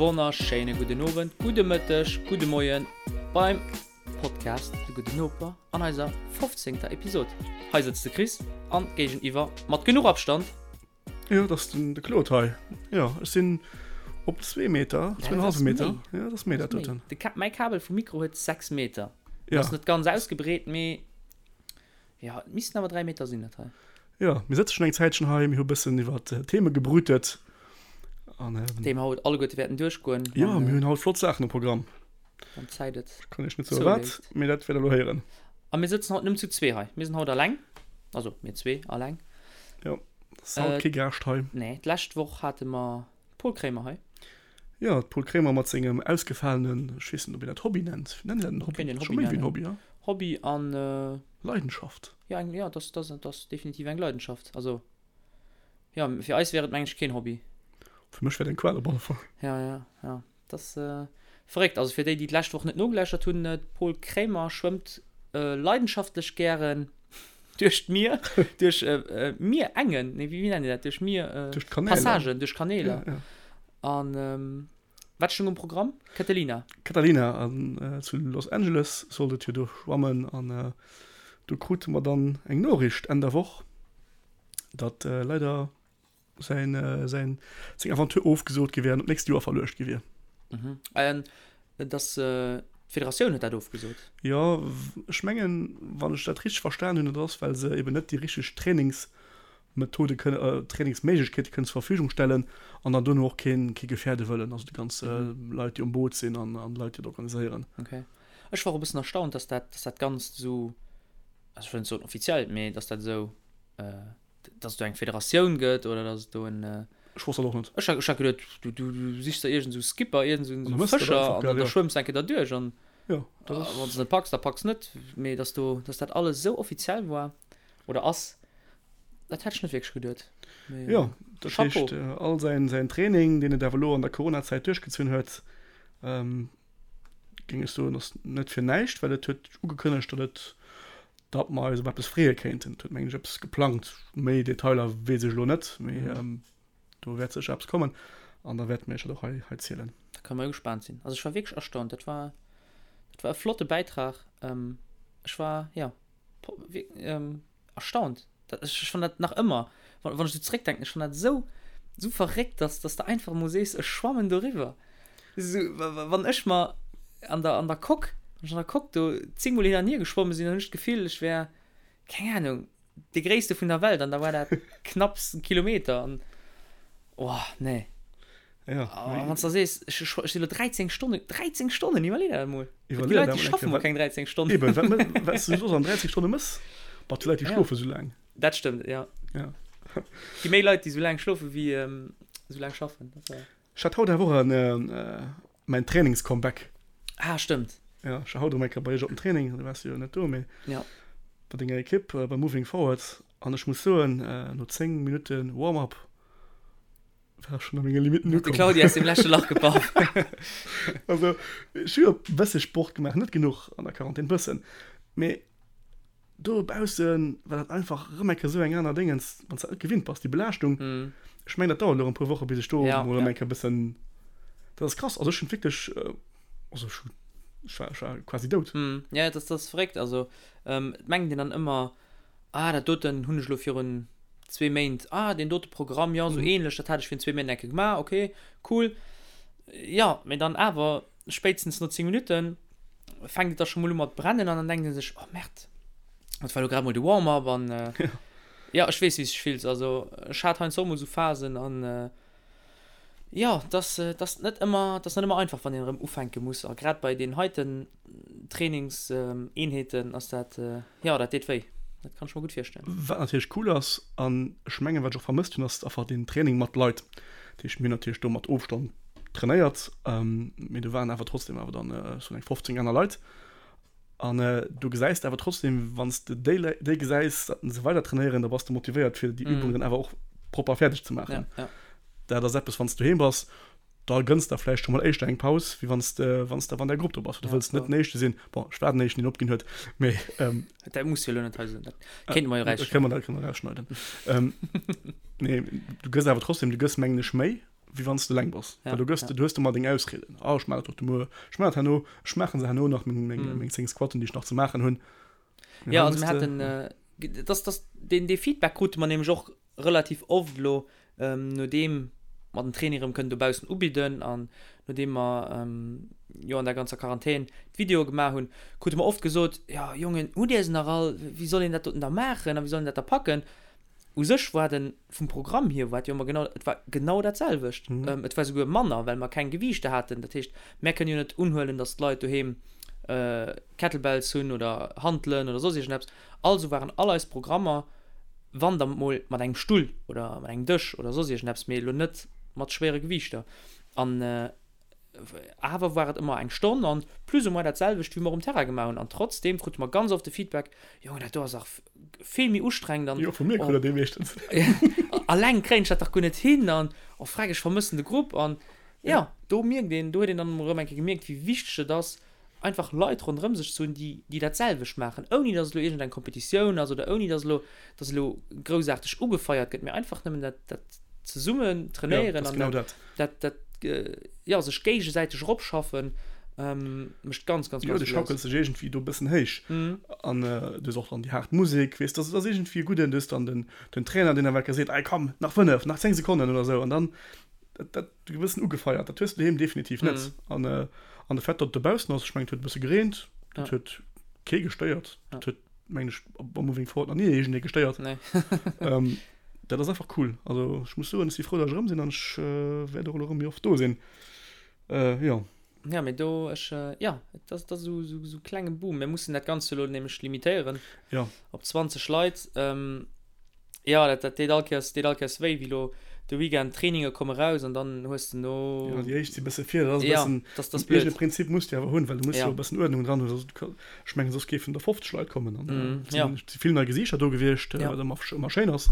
Wonnerschéine gudden Owend, gudde Mëtteg, gudde Moien beim Podcast De Gudden Noper an eiser 15. Episod. Hei sëtzt de Chris an géigeniwwer mat genuch Abstand. Jo, dat ass den de Claude hei. Jo, ech sinn op zwee Meter, Ja, dat ass 2,5 Meter. méi. Jo, dat ass méi dat doten. De Ka mäi Kabel vum Mikro huet 6 Meter. Ja. Ass net ganz ausgebreet, mee jo, et missten awer 3 Meter sinn dat hei. Jo, mir sëtze schonn eng Zäitchen hei, mir hu bëssen iwwer Theme gebrütet an. Déi mer haut alleguerte wäerten duerchgoen. Jo, mir hunn haut flott Saachen um Programm. Wann d'Zäit et. Ech kann iech net soe wat, mee dat wäert der elo héieren. A mir sëtzen haut nëmmen zu zwee hei. Mir sinn haut alleng. Also mir zwee alleng. Jo, ass haut kee Gaascht hei. Nee, d'lescht Woch hate mer d'Paul Kremer hei. Jo, d'Paul Kremer mat sengem ausgefalenen, ech weess net, ob een dat Hobby nennt. Nennt een dat en Hobby? Kéint een Scho Hobby méi wéi en nennen. Hobby, ja. Hobby an. Leidenschaft. Jo, eng, jo, dat ass, dat ass definitiv eng Leidenschaft. Also, jo, fir eis wär et, meng ech, keen Hobby. Fir mech wär et eng Qual op alle Fall. Ja, ja, ja. Dat ass verréckt. Also fir déi, déi d'lescht Woch net nogeläuschert hunn, de Paul Kremer schwëmmt leidenschaftlech gären duerch d'Mier, duerch Mierengen, nee, wéi nennt een dat, duerch Mier, Duerch d'Kanäler. Passagen, duerch Kaneeler. Ja, ja. An wat stoung um Programm? Catalina. Catalina, an zu Los Angeles sollt et jo do schwammen an do krute mer dann eng Noriicht Enn der Woch, datt leider säin, säin, seng Aventure ofgesot gi wär an op d'nächst Joer verluecht gi wier. Mhm. An dass d'Federatioun huet dat ofgesot? Jo, ech mengen, wann ech dat richteg verstan hunn, dat ass, well se eben net déi richteg Trainingsmethode kënne, Trainingsméiglechkeete kënnen zur Verfügung stellen an dann dono och keen, kee gefäerde wëllen, also déi ganz Leit, déi um Boot sinn an, an d'Leit, déi dat organiséieren. Okay. Ech war och e bëssen erstaunt, dass dat, dass dat Ganzt esou, also ech wëll net soen offiziell, mee dass dat esou, dass et do eng Federatioun gëtt oder dass et do en. Ech wosst dat och net. Ech hat, ech hat geduet, du, du, du sichs der iergend esou Skipper, iergend esou An da mëss de dat Fëscher einfach, an gell, dann da jo. schwëmms de eng Kéier derduerch an Jo, dat ass. wann s de net packs, da packs net. Mee dass do, dass dat alles esou offiziell war oder ass, dat hätt ech net wierklech geduet. Mee Jo, dat Chapeau. heescht, all säin, säin Training, deen et awer elo an der Coronazäit duerchgezunn huet, géing ech soen, ass net fir näischt, well et huet ugekënnegt, datt et, datt mer eis op eppes freeë kéinten. Et huet, mengen ech, eppes geplangt. Méi Detailer weess ech elo net, mee do wäert sécher eppes kommen an da wäerte mir iech dat och hei, hei zielen. Da kënne mer jo gespaant sinn. Also ech war wierklech erstaunt. Dat war, dat war e flotte Bäitrag. Ech war, jo, erstaunt. Dat, ech fann dat nach ëmmer, wann, wann ech esou zréckdenken, ech fann dat esou, esou verréckt, dass, dass de einfach emol sees, ech schwammen doriwwer. Esou, wann ech mer an der, an der Coque, wann ech an der Coque do zéngmol hin an hier geschwomme sinn, dann hunn ech d'Gefill, ech wär, keng Ahnung, dee Gréisste vun der Welt an da war dat knapps e Kilometer an, oh, nee. Ja, A wann s de da sees, ech, ech sinn elo 13 Stonnen, 13 Stonnen, iwwerlee der dat emol. Déi Iwwerlee Leit, dat déi emol eng schaffen Kéier. mol keng 13 Stonnen. Eben, wat më-, wat s du soss an 13 Stonne mëss? Bah, déi Leit, déi Ja. schlofe sou laang. Dat stëmmt, ja. Ja. Gi méi Leit, déi sou laang schlofe wéi sou laang schaffen. Dat war. Ech hat haut awer och en, mäin Trainings-Comeback. Ah, stëmmt. Ja, ech war haut erëm eng Kéier bei iech op dem Training, du waars jo net do, mee Ja. bei denger Ekipp, bei Moving Forward. An ech muss soen, no 10 Minutte Warm-up war ech schonn a menge Limitten De ukomm. Claudio aus dem leschte Lach gepaff. Also, ech hu jo e bësse Sport gemaach, net genuch an der Quarantän, bëssen, mee dobausse war dat einfach erëm eng Kéier esou eng aner Déngens, wann s de dat net gewinnt bass, déi Belaaschtung. Ech mengen, dat dauert elo erëm e puer Woche bis ech do Ja, mol erëm ja. eng Kéier e bëssen, dat ass krass. Also ech hunn wierklech, also ech hu, ech war, ech war quasi dout. Ja, dat ass, dat ass verréckt. Also, et mengt een dann ëmmer, Ah, dat doten hunn ech elo virun zwee Méint, ah, deen dote Programm, jo, esou ähnlech, dat hat ech virun zwee Méint eng Kéier gemaach, okay, cool. Jo, mee dann awer, spéitstens no 10 Minutten fänkt et da scho mol u mat brennen an dann denkt ee sech, oh Merde, dat war elo grad mol de Warm-up an jo, ech weess, wéi s de dech fills. Also ech hat heiansdo och mol esou Phasen an Jo, et ass, et ass net ëmmer, et ass net ëmmer einfach, wann een erëm ufänke muss. A grad bei deenen heiten Trainingseenheeten ass dat, jo, dat deet wéi. Dat kann ech mer gutt virstellen. Wat natierlech cool ass, an ech mengen, wat ech och vermësst hunn, ass einfach deen Training mat Leit. Dat heescht, mir hunn natierlech do mat Ofstand trainéiert, mee do waren awer trotzdem awer dann sou eng 15 aner Leit. An du gesäis de awer trotzdem, wann s de déi Leit, déi gesäis, datt se weider trainéieren, da bass de motivéiert fir déi Übung dann awer och propper fäerdeg ze maachen. Ja, ja. Dat ass eppes, wann s du doheem bass, da gënns der vläicht scho mol éischter eng Paus, wéi wann s de, wann s de awer an der Grupp do bass. Du Ja, wëlls net voll. den Éischte sinn. Bon, ech war den Éischten, deen opginn huet, mee Dat muss jo elo net hei soen, dat kéinte mer jo dat kënne erausschneiden. mer, dat kënne mer erausschneiden. Nee, du gëss awer trotzdem, du gëss mengen ech méi. Wéi wann s de eleng bass. Well do gëss de, du hues ëmmer deng Ausrieden, Ah, ech maachen dat och muer, ech maachen dat herno, ech maachen se herno nach, meng, meng, meng 10 Squatten, déi ech nach ze maachen hunn. Mee Ja, also mir haten, dass, dass, deen, dee Feedback krute mer nämlech och relativ oft elo, nodeem mer den Training erëm kënnen dobaussen ubidden an nodeem mer jo an der ganzer Quarantän d'Videoe gemaach hunn, krute mer oft gesot, Jo, Jongen, hutt Dir se nach all? Wéi soll een dat doten da maachen a wéi soll een dat da packen? U sech war den, vum Programm hier war et jo ëmmer genau, et war genau dat selwecht. Et war souguer manner, well mer keng Gewiichter haten. Dat heescht, mär kënnen jo net unhuelen, datt d'Leit doheem Kettlebells hunn oder Hantelen oder soss iergendeppes. Also waren all eis Programmer, wann da mol mat engem Stull oder mat engem Dësch oder soss iergendeppes, mee elo net mat schwéiere Gewiichter. An awer war et ëmmer eng Stonn an plus ou moins dat selwecht, wéi mer um Terrain gemaach hunn. An trotzdeem krute mer ganz oft de Feedback, Jongen, dat do ass dach vill méi ustrengend an Jo, vu mir krut der dee meeschtens. Alleng kréien ech dat dach guer net hin an oh freck, ech vermëssen de Grupp. An jo, do mierkt een, do huet een dann erëm eng Kéier gemierkt, wéi wichteg et ass, einfach Leit ronderëm sech ze hunn, déi, déi dat selwecht maachen, ouni datt et elo iergendeng Kompetitioun ass oder ouni datt elo, datt elo groussaarteg ugefeiert gëtt, mee einfach nëmmen dat, dat zesummen trainéieren an dat, dat, dat, jo, sech géigesäiteg eropschaffen, mécht ganz, ganz, ganz vill aus. Jo, du schaukels dech iergendwéi do e bëssen héich an du hues och dann déi haart Musek, weess, dat ass iergendwéi e gudden, du hues dann den, den Trainer, deen awer seet, Ey komm, nach 5, nach 10 Sekonnen oder esou an dann, dat, dat. e bëssen ugefeiert. Dat hues de doheem definitiv net. An an de Fait, datt et dobaussen ass, ech mengen, et huet e bësse gereent, dat huet kee gestéiert. Dat huet, mengen ech, am Moving Forward nach ni iergendee gestéiert. Dat ass einfach cool. Also ech muss soen, ech si frou, datt ech erëm sinn an ech wäert och elo erëm méi oft do sinn. Jo. Ja, mee do, ech, jo, et ass, et ass esou, esou, esou klenge Boom. Mir mussen dat Ganzt elo nämlech limitéieren. Jo. Op 20 Leit. Jo, dat, dat deet all Kéiers, deet all Kéiers wéi, wéi elo de Weekend d'Traininge komme raus an dann hues de no. Jo, déi éischt si bësse vir, dat ass e bëssen. Ja, dat ass blöd. Iergend e Prinzip muss de awer hunn, well du muss jo e bëssen Uerdnung dran hunn, soss, ech mengen, soss géifen der 50 Leit kommen an et sinn, et si vill nei Gesiichter do gewiescht, wat ëmmer, ëmmer schéin ass.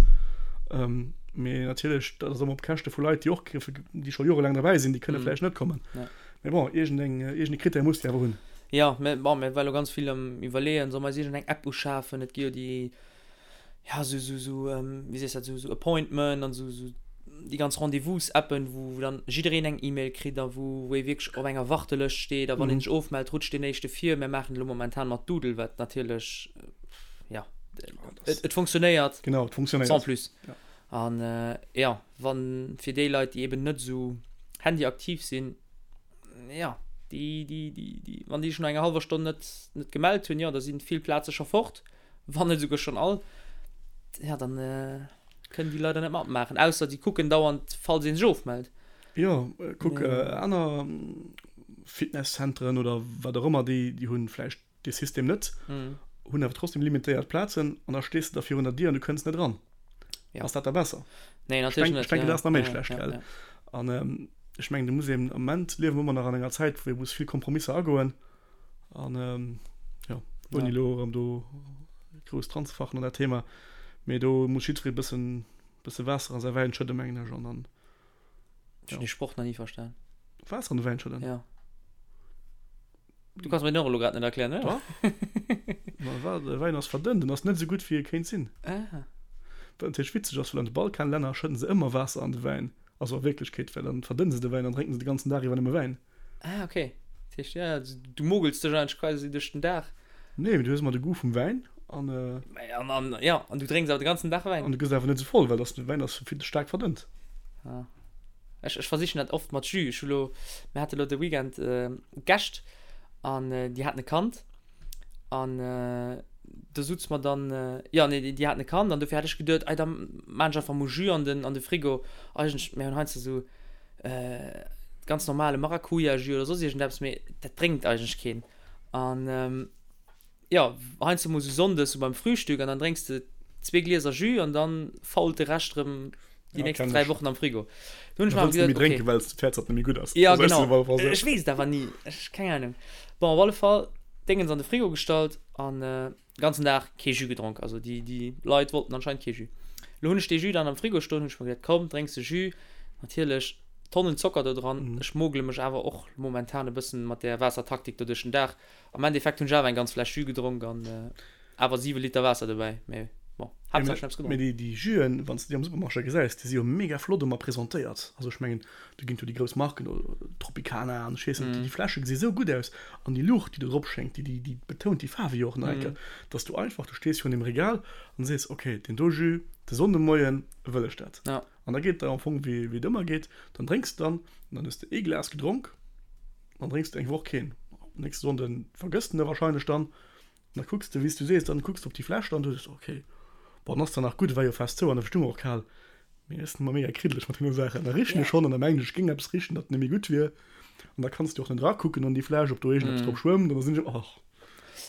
Mee natierlech, dat ass ëmmer op Käschte vu Leit, déi och, déi scho jorelaang derbäi sinn, déi kënne vläicht net kommen. Mee bon, iergendeng, iergende Krittär muss de awer hunn. Jo, mä bon, mir war elo ganz vill am Iwwerleeën, solle mer eis iergendeng App uschafen? Et gi jo déi. ja, sou, sou, sou, wéi sees dat, sou, sou Appointment an sou, sou déi ganz Rendez-vous-Appen, wou, wou dann jiddereen eng E-Mail kritt a wou, wou ee wierklech op enger Wartelëscht steet a wann een sech ofmellt, rutscht deen éischte vir. Mir maachen et elo momentan mat Doodle, wat natierlech, ja, et, et funktionéiert. Genau, et funktionéiert. Sans plus. Ja. An, ja, wann, fir déi Leit, déi eben net sou handyaktiv sinn, ja, déi, déi, déi, déi, wann déi sech no enger hallwer Stonn net, net gemellt hunn, jo, da sinn vill Plaze scho fort. Wann net esouguer schonn all, ja dann kënnen déi leider net matmaachen, ausser déi kucken dauernd falls ee sech ofmellt. Jo, kuck aner Fitnesszenteren oder wat och ëmmer, déi déi hunn vläicht dee System net, hunn awer trotzdem limitéiert Plazen an da stees de da virun der Dier an du kënns net eran. Ass dat da besser? Nee, natierlech net. Ech denken, dat ass nach méi schlecht, gell? An ech mengen, do muss een, am Moment liewe mer ëmmer nach an enger Zäit, wou ee muss vill Kompromisser agoen. An ähm, ja, ouni elo erëm do grouss dran ze fachen an dat Thema, mee do muss jiddweree bëssen, bësse Waasser an säi Wäin schëdden, mengen ech, an dann. Ech hunn dee Sproch nach ni verstan. Waasser an de Wäin schëdden? Ja. Du kanns mir den och elo grad net erklären, oder? Dach. Ma wa, de Wäin ass verdënnt, en ass net esou gutt, wéi e kéint sinn. Ah. Wat natierlech witzeg ass, well an de Balkanlänner schëdden se ëmmer Waasser an de Wäin, also a Wierklechkeet, well dann verdënne se de Wäin an drénken se de ganzen Dag iwwer nëmme Wäin. Ah, okay. Dat heescht, ja, du mogels dech eigentlech quasi duerch den Dag. Nee, mee du hues ëmmer de Goût vum Wäin an. An, an, ja, an du drénks awer de ganzen Dag Wäin. An du gëss awer net esou voll, well de Wäin ass vill ze staark verdënnt. Ah. Ech, ech versichen dat oft mat Jus. Ech hu lo, mir hate lo de Weekend Gäscht an déi haten e Kand an do sutze mer dann, jo, nee, déi haten e Kand an dofir hat ech geduet, ei da maan ech einfach mol Jus an den, an de Frigo. Eigentlech, mir hunn heiansdo esou ganz normale Maracuja-Jus oder soss iergendeppes, mee dat drénkt eigentlech keen. An jo, heiansdo mol sou sonndes sou beim Frühstück an dann drénks de zwee Glieser Jus an dann fault de Rescht erëm déi nächst 3 Wochen am Frigo. Do hunn ech mer awer geduet, okay. Well s de d'Häerz, datt net méi gutt ass. Ja, genau. Ech weess et awer ni. Ech, keng Ahnung. Bon, op alle Fall, Déngens an de Frigo gestallt an Ganzen Dag kee Jus gedronk, also déi déi Leit wollten anscheinend kee Jus. Lo hunn ech dee Jus dann am Frigo stoen, hunn ech mer geduet, komm drénks de Jus, natierlech Tonnen Zocker do dran. Ech mogele mech awer och momentan e bëssen mat där Waassertaktik do duerch den Dag. Am Endeffekt hunn ech awer eng ganz Fläsch Jus gedronk an awer 7 Liter Waasser dobäi, mee. Bon, Haaptsaach ech hunn eppes gedronk. Mee déi Juen, wann s de déi am Supermarché gesäis, déi si jo mega flott ëmmer presentéiert. Also ech mengen, do ginn et jo déi grouss Marken, Tropicana an ech weess net, déi Fläsche gesi sou gutt aus an déi Luucht, déi do drop schéngt, déi, déi betount déi Faarwe jo och nach eng Kéier, dass du einfach, du stees virun deem Regal an sees, ok, deen do Jus, de Sonndemoien wëll ech dat. An da geet et der am Fong wéi et ëmmer geet, dann drénks de dann an dann hues de ee Glas gedronk, dann drénks de eng Woch keen. Nächste Sonnde vergëss de en da warscheinlech dann. An da kucks de, wéi s du sees, dann kucks de op déi Fläsch dann, du sees, ok, bon, dann ass zwar nach gutt, et war jo fest zou an da stung och kal, mee ech sinn ëmmer mega kriddeleg mat deene Saachen. Da richen ech schonn an da mengen ech, ech géing eppes richen, dat net méi gutt wier. An da kanns de och net erakucken an déi Fläsch, ob do iergendeppes drop schwëmmt, an da sinn ech, och.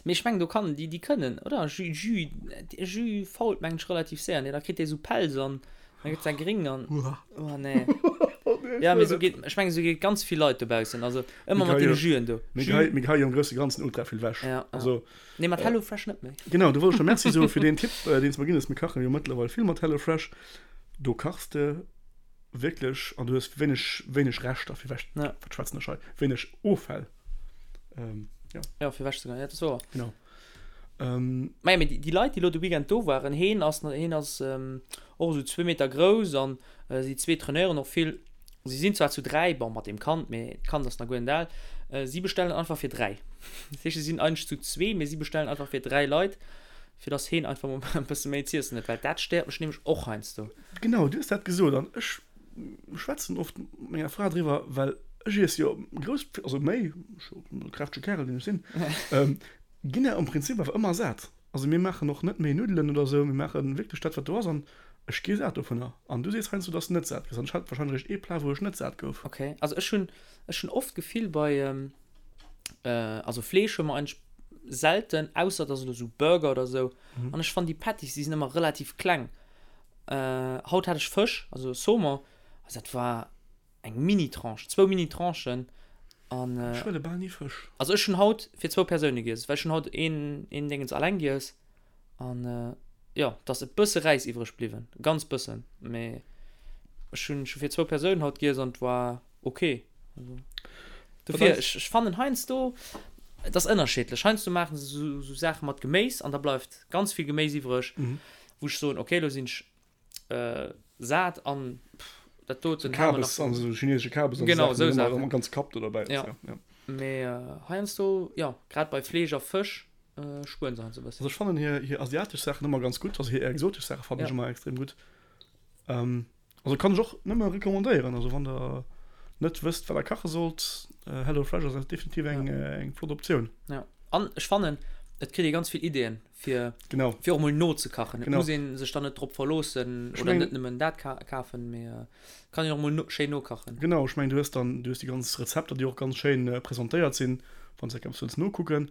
Mee ech mengen, do kann, déi, déi kënnen, oder? Jus, Jus, Jus fault, mengen ech, relativ séier, nee? Da kritt dee sou Pelz an da gëtt dat gréng an. Uah. Oh nee. Ja, mee sou geet, ech mengen, sou geet ganz vill Leit dobaussen, also ëmmer mat deene Juen do. Mir gehei, mir geheie jo am grousse Ganzen ultra vill wech. Ja, ja. Also. Nee, mat Hello Fresh net méi. Genau, do wollt ech der Merci soe fir deen Tipp, deen s de mer ginn hues. Mir kache jo mëttlerweil vill mat Hello Fresh. Do kachs de wierklech an du hues wéineg, wéineg Reschter fir wech, Ja. wat schwätzen ech hei, wéineg Offäll. Ähm, ja. Ja, fir wech ze goen, ja, dat ass wouer. Genau. Maja, mee déi Leit, déi elo de Weekend do waren, heen ass, heen ass och esou zwee Meter grouss an si zwee trainéieren och vill. Si sinn zwar zu dräi, bon, mat deem Kand, mee d'Kand ass nach guer net al. Si bestellen einfach fir dräi. Dat heescht, si sinn eigentlech zu zwee, mee si bestellen einfach fir dräi Leit, fir dass heen einfach mol e bësse méi z'iessen huet, well dat stéiert mech nämlech och heiansdo. Genau, du hues dat gesot an ech schwätzen oft mat menger Fra driwwer, well ech iess jo grouss, also méi, ech e kräftege Kärel, deen ech sinn, Ginn der am Prinzip awer ëmmer sat. Also mir maachen och net méi Nuddelen oder sou, mir maache wierklech dat wat do ass an ech gi sat dovunner. An du sees heiansdo, dass de net sat gëss an ech hat warscheinlech eréischt ee Plat wou ech net sat gouf. Ok, also ech hunn ech hunn oft d'Gefill bei also Fleesch hu mer eigentlech selten, ausser et ass elo sou Burger oder sou an ech fannen déi Patties déi sinn ëmmer relativ kleng. Haut hat ech Fësch, also Saumon, also dat war Eng Mini-Tranche, zwou Mini-Tranchen an. Ech huele bal ni Fësch. Also ech hunn haut fir zwou Persoune giess, well ech hunn haut een een Déngens alleng giess an jo, et ass e bësse Räis iwwreg bliwwen, ganz bëssen, mee ech hunn ech hu fir zwou Persounen haut giess an et war ok. Also dofir, ech ech fannen heiansdo, et ass ënnerschiddlech, heiansdo maache se sou sou Saache mat Geméis an da bleift ganz vill Geméis iwwreg, wou ech soen, ok, elo sinn ech Sat an dat doten Kabes an esou chinesesche Kabes an genau esou Saachen ganz Kapp do derbäi ja. Ja. Mee heiansdo jo grad bei Fleesch a Fësch spueren se heiansdo e bëssen. Also ech fannen hir hir asiatesch Saachen ëmmer ganz gutt, also hir exotesch Saache fannen ech ëmmer extrem gutt. Also kann ech och nëmme recommandéieren, also wann der net wësst wat der kache sollt, Hello Fresh ass definitiv eng eng flott Optioun. Ja an ech fannen et kritt ee ganz vill Ideeën fir, genau. fir och mol nozekachen. Et muss ee sech dann net drop verloossen oder net nëmmen dat kafen, mee kann een och mol no, schéin nokachen. Genau, ech mengen du hues dann, du hues déi ganz Rezepter, déi och ganz schéin presentéiert sinn, wann s de eppes wëlls nokucken.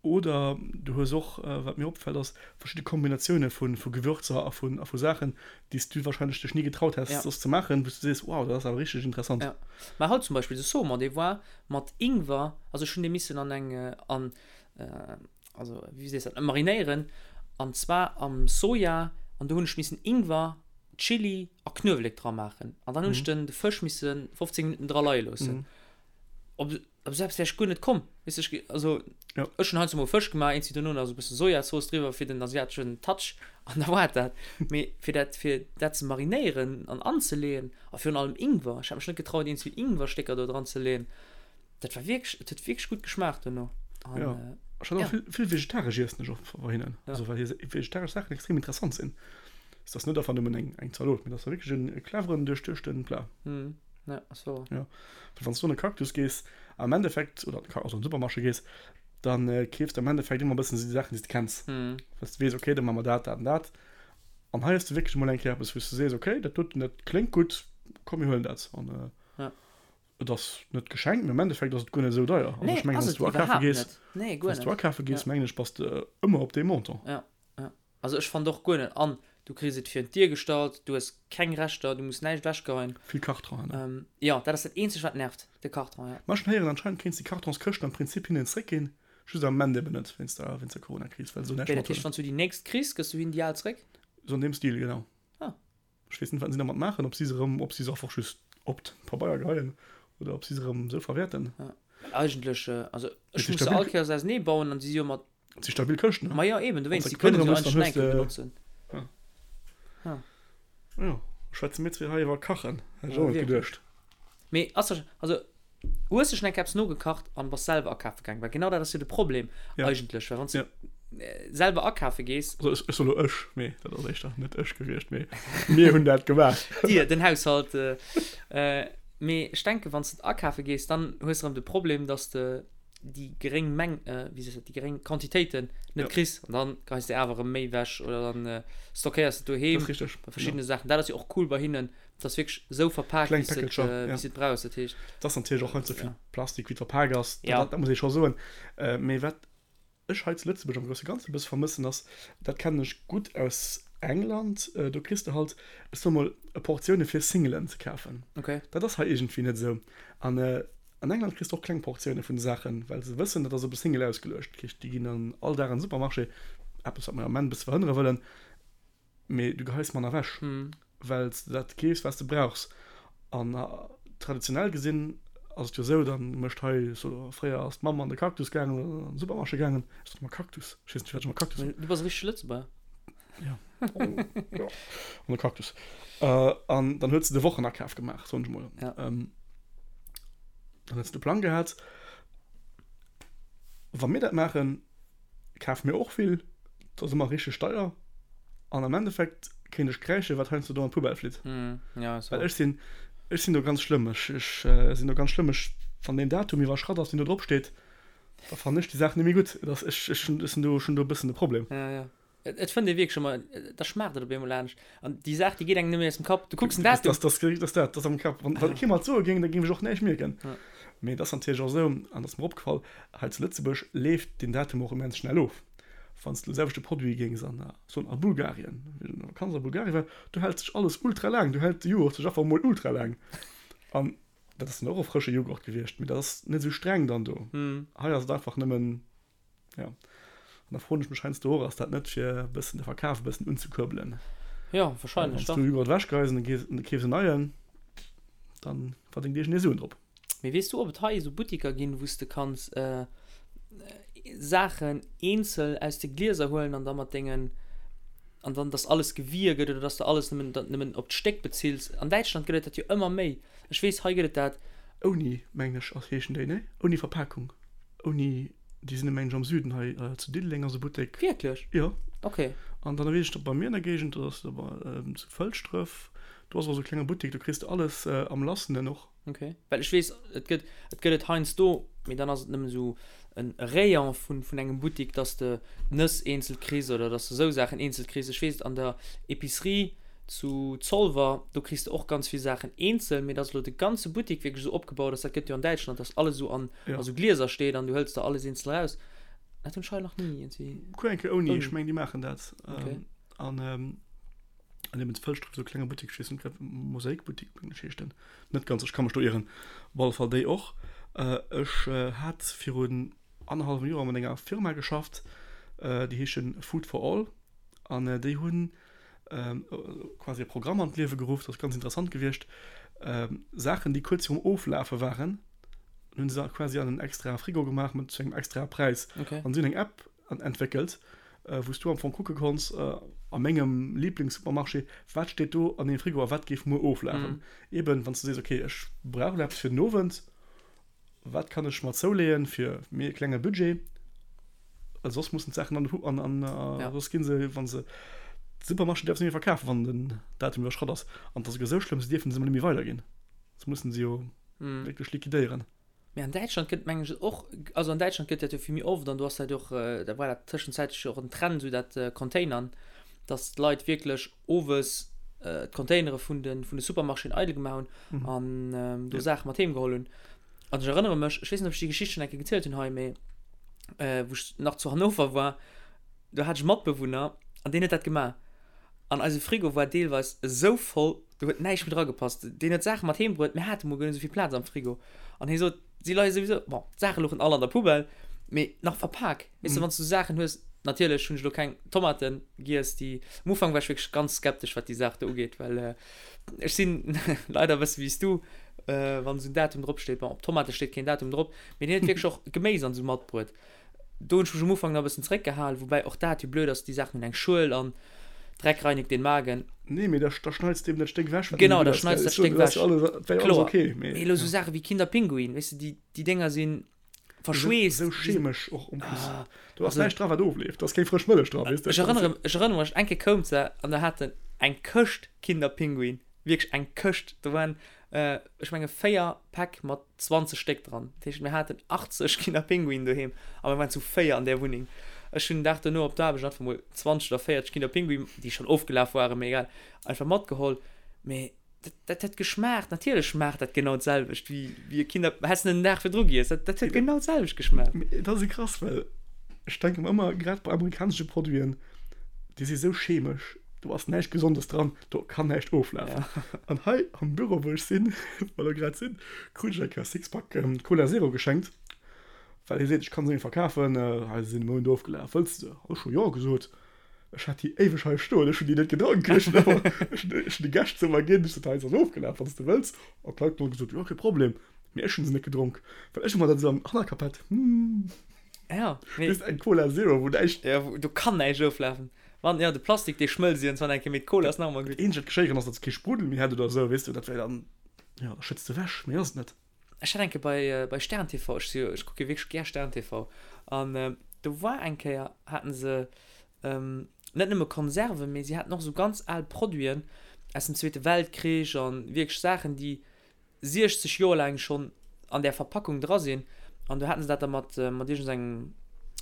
Oder du hues och, wat mir opfält, ass verschidde Kombinatioune vu vu Gewürzer a vun a vu Saachen, déi s du warscheinlech dech ni getraut häss, ja. soss ze maachen, wou s du sees, wow, dat ass awer richteg interessant. Ja. Mä haut zum Beispill de Saumon, dee war mat Ingwer, also ech hunn dee missen an eng, an also wéi sees dat, marinéieren an zwar am Soja an do hunn ech missen Ingwer, Chili a Knuewelek dra maachen an dann hunn ech den de Fësch misse 15 Minutten dra leie loossen. Op op esou eppes wär ech guer net komm, weess ech, also Ja. ech hunn heiansdo mol Fësch gemaach, eens wéi dono nach esou e bësse Sojazooss driwwer fir den asiateschen Touch an da war et dat. Mee fir dat fir dat ze marinéieren an anzeleeën a virun allem Ingwer, ech hat mech net getraut eens wéi Ingwerstécker do dran ze leeën, Dat war wierklech, et huet wierklech gutt geschmaacht dono. An, ja. Äh, ech hat ja. vill, vill vegetaresch iessen ech och bei hinnen. Ja. Also, well hir vegetaresch Saachen extrem interessant sinn. Ist das net einfach nëmmen eng, eng Zalot, mee das war wierklech en cleveren, duerchduechten Plat. Mhm. Ja, ass wouer. Ja. Well wann s du an e Cactus gees, am Endeffekt, oder also an den Supermarché gees, dann äh, keefs du am Endeffekt ëmmer e bëssen déi Saachen, déi s de kenns. Mhm. Well s du weess, okay, da maache mer dat, dat an dat. An hei hues du wierklech emol eng Kéier eppes, wou s du sees, okay, dat doten, dat kléngt gutt, komm mir huelen dat. An, äh, ja. Et ass net geschenkt, mee am Endeffekt ass et guer net esou deier. Also ech mengen, wann s du akafe gees, wann s du akafe gees, mengen ech, bass de ëmmer op deem Montant. Ja, ja. Also ech fannen och guer net. An du kriss et virun d'Dier gestallt, du hues keng Reschter, du muss näischt ewechgeheien. Vill Kartonen, ne? Jo, dat ass dat eenzegt wat nervt, de Karton, ja. Ma ech hunn héieren, anscheinend kéints de Kartonskëschten am Prinzip hinnen zréckginn, just am Ament eben net, wéinst der, wéinst der Coronakris, well se do näischt Wéi, dat heescht, mat wann s du déi nächst kriss, gëss du hinnen déi al zréck? Sou an deem Stil, genau. Ah. Ech weess net, wat si dermat maachen, ob si se erëm, ob si se einfach just op d'Pabeier geheien oder ob si se erëm esou verwäerten. Ja, well eigentlech, also ech muss se all Kéiers ausenee bauen an si si jo mat. Et si stabil Këschten, ne? Ma jo, eben, dowéinst, si kënnen se jo eigentlech nach eng Kéier benotzen. Jo, schwätze mir zwee hei iwwer Kachen. Hätt ech och net geduecht. Mee ass der, also hues de schon eng Kéier eppes nogekacht an bass selwer akafe gaangen? Well genau dat ass jo de Problem eigentlech, well wann s de selwer akafe gees. Also ech soe lo ech, mee dat ass éischter net ech gewiescht, mee mir hunn dat gemaach. Dir, den Haushalt. Mee ech denken, wann s de akafe gees, dann hues de erëm de Problem, dass de déi geréng Meng, wéi sees de dat, déi geréng Quantitéiten net kriss an dann geheis de awer erëm méi ewech oder dann stockéiers de doheem. Dat ass richteg. Bei verschiddene Saachen. Dat ass jo och cool bei hinnen, dat ass wierklech esou verpaakt, wéi s de et, wéi s de et brauchs. Dat heescht. Et ass natierlech och net esou vill Plastik, wéi et verpaakt ass, dat muss ee scho soen. Mee wat ech hei zu Lëtzebuerg am grousse Ganze e bësse vermëssen ass, dat kennen ech gutt aus England, do kriss de halt, ech soe mol, Portioune fir Singelen ze kafen. Dat ass hei iergendwéi net esou. An an England kriss de och kleng Portioune vun de Saachen, well se wëssen, dat ass op e Single ausgeluecht. Dat heescht, déi ginn dann all Dag an de Supermarché, eppes wat mer am Ament e bësse verhënnere wëllen, mee du geheis manner ewech, well s de dat keefs, wat s de brauchs. An traditionell gesinn ass et jo esou, da mécht hei, so fréier ass d'Mamm an de Cactus gaangen oder an de Supermarché gaangen, ech soen ëmmer Cactus, ech weess net firwat ech ëmmer Cactus soen. Du bass e richtege Lëtzebuerger. Jo, jo, an de Cactus. An dann huet se de Wochenakaf gemaach, soen ech emol. Ja. Dann huet se de Plang gehat. Wa mir dat maachen, kafe mir och vill, dat ass ëmmer richteg deier an am Endeffekt kéint ech kräische wat heiansdo do an d'Poubelle flitt. Mm, ja, Well ech sinn, ech sinn do ganz schlëmm, ech, ech sinn do ganz schlëmm, ech, wann deen Datum iwwerschratt ass, deen do drop steet, da fannen ech déi Saach net méi gutt. Et ass, ech, ech hunn, ech sinn do, ech hunn do e bëssen e Problem. Ja, ja. Et, et fënnt ee wierklech ëmmer, da schmaacht et op eemol anescht. An déi Saach, déi geet engem net méi aus dem Kapp. Du kucks den Datum. Das, das, das, das, dat ass am Kapp. Wann, wann kee mer et soe géing, da géing ech och näischt mierken. Ja. Mee et ass natierlech och esou, an dat ass mer opgefall, hei zu Lëtzebuerg leeft deen Datum och immens schnell of. Wann s de de selwechte Produit géings an, soen a Bulgarien, wéi ech an der Vakanz a Bulgarien war, do hält sech alles ultra laang, do hält de Jughurt sech einfach emol ultra laang. An dat ass dann och e frësche Jughurt gewiescht, mee dat ass net esou streng dann do. Hei ass et einfach nëmmen, jo. An da froen ech mech heiansdo och, ass dat net fir e bëssen de Verkaf e bëssen unzekuerbelen? Jo, wahrscheinlech, Wann s du e Jughurt ewechgeheis an du keefs en neien, dann verdéngt iergendee Suen drop. Mee weess du ob et hei esou Buttiker ginn wou s de kanns Saachen eenzel aus de Glieser huelen an da mat dengen an dann dass alles gewie gëtt oder dass de alles nëmmen nëmmen op d'Stéck bezills? An Däitschland gëtt et dat jo ëmmer méi. Ech weess hei gëtt et dat. Ouni, mengen ech ass heeschen déi, nee? Ouni Verpakung, ouni, déi sinn mengen ech am Süden hei zu Diddeleng ass e Buttek. Wierklech? Jo. Ok. An dann weess ech net bei mir an der Géigend, do ass zu Fëlschdref, do ass och esou e klenge Buttek, do kriss de alles am Lassenen och. Ok, well ech weess, et gëtt, et gëtt et heiansdo, mee dann ass et nëmmen esou en Rayon vun, vun engem Buttik, dass de d'Nëss eenzel kriss oder dass de esou Saachen eenzel kriss. Ech weess, an der Epicerie zu Zolwer, do kriss de och ganz vill Saachen eenzel, mee dass elo de ganze Buttik wierklech esou opgebaut ass, dat gëtt jo an Däitschland, dass alles esou an a sou Glieser steet an du hëls der alles eenzel eraus. Dat hunn ech hei nach ni iergendwéi. Kuck eng Kéier ouni, ech mengen déi maachen dat. Ok. An. An eben zu Fëlschdref esou e klenge Buttek, ech weess net grad, Mosaikbuttek mengen ech heescht en, net ganz, ech ka mech do ieren, op alle Fall déi och. Ech hat virun annerhallwem Joer mat enger Firma geschafft, déi heeschen Food for All an déi hunn quasi e Programm an d'Liewe geruff, dat ass ganz interessant gewiescht, Saachen déi kuerz virum Oflafe waren, hunn se quasi an en extrae Frigo gemaach mat zu engem extrae Präis an si hunn eng App entwéckelt, wou s du am Fong kucke konns, a mengem Liblingssupermarché, wat steet do an deem Frigo a wat géif muer oflafen. Eben, wann s du sees, okay, ech brauch elo eppes fir den Owend, wat kann ech mer zouleeën fir méi e klenge Budget, well soss mussen d'Saachen an den, an, an, soss gi se, wa se, de Supermarché däerf se net méi verkafen, wann den Datum iwwerschratt ass. An et ass esouguer esou schlëmm, se dierfen se emol net méi weiderginn, se mussen se jo wierklech liquidéieren. Mee an Däitschland gëtt mengen ech och, also an Däitschland gëtt dat jo vill méi oft an do ass dat jo och, da war dat tëschenzäitlech jo och en Trend, esou dat Containern, datt d'Leit wierklech owes d'Containere vun de vun de Supermarchéen eidel gemaach hunn an do Saache mat heem geholl hunn. An ech erënnere mech, ech weess net, ob ech déi Geschicht schonn eng Kéier gezielt hunn hei, mee wou ech nach zu Hannover war, do hat ech e Matbewunner an deen huet dat gemaach an eise Frigo war deelweis esou voll, Do huet näischt méi dra gepasst. Deen huet Saache mat heem bruet, mir hate mol guer net esou vill Plaz am Frigo. An hie sot, si leie souwisou, bon, d'Saache louchen all an der Poubelle, mee nach verpak. Weess de, wann s du Saachen hues, natierlech hunn ech elo keng Tomate giess, déi, am Ufank war ech wierklech ganz skeptesch, wat déi Saach do ugeet, well ech sinn leider e bësse wéi s du, wann esou en Datum drop steet, bon, op Tomate steet keen Datum drop, mee deen huet wierklech och Geméis an esou matbruet. Do hunn ech mech am Ufank nach e bëssen zeréckgehalen, woubäi och dat jo blöd ass, déi Saachen hunn eng Schuel an. Dreck reinigt den Magen. Nee, mee da, da schneits de eben dat Stéck ewech, wat Genau, da schneits dat Stéck ewech. Dat wär jo alles okay, mee. Mee elo sou Saache wéi Kinder Pinguin, weess de, déi, déi Dénger si verschweesst. Sou chemesch och en plus. Do ass näischt dra, wat ofleeft. Do ass keng frësch Mëllech dra, weess de. Ech erënnere, ech erënnere mech, eng Kéier koum se an da hat en eng Këscht Kinder Pinguin, wierklech eng Këscht. Do waren ech menge 4 Päck mat 20 Stéck dran. Dat heescht, mir haten 80 Kinderpinguinen doheem a mir waren zu 4 an där Wunneng. Ech hunn den Dag dono op d'Aarbecht einfach mol 20 oder 40 Kinderpinguinen, déi schonn ofgelaf waren, mee egal, einfach matgeholl. Mee dat, dat huet geschmaacht. Natierlech schmaacht dat genau d'selwecht wéi, wéi e Kinder, häss de en den Dag virdru giess, dat, dat huet genau d'selwecht geschmaacht. Mee et ass esou krass, well ech denke mer ëmmer, grad bei amerikanesche Produiten, déi si sou chemesch, do ass näischt Gesondes dran. Do kann näischt oflafen. An hei am Büro, wou ech sinn, wou mer grad sinn, krut ech eng Kéier e Sixpack Cola Zero geschenkt, well hie seet, ech kann se net méi verkafen, hei se sinn e Mount ofgelaf, wëlls de se? Ech hu jo gesot. Ech hat déi éiweg hei stoen, ech hunn déi net gedronk. Ech hunn awer, ech hunn, ech hunn de Gäscht se ëmmer ginn, ech sot, hei se ass ofgelaf, wann s de wëlls. An d'Leit hunn all gesot, jo, kee Problem. Mee ech hunn se net gedronk, well ech ëmmer dat esou am Hannerkapp hat, hm. Ja, mee. Just eng Cola Zero, wou näischt. Ja, wou, do kann näischt oflafen. Wann, ja, de Plastik, dee schmëlzt iergendwann eng Kéier, mee d'Cola ass nach ëmmer gutt. Dat eenzegt, wat geschéieren ass, datt se kee Spruddel méi hätt oder esou, weess de, dat wär dann, jo, da schëtts de ewech, méi ass et net. Ech hat eng Kéier bei, bei Stern TV, ech si jo, ech kucke wierklech gär Stern TV, an do war eng Kéier, haten se net nëmme Konserven, mee si haten och esou ganz al Produiten aus dem Zweete Weltkrich an wierklech Saachen, déi 60 Joer laang schonn an där Verpackung dra sinn an do haten se dat da mat mat iergendengem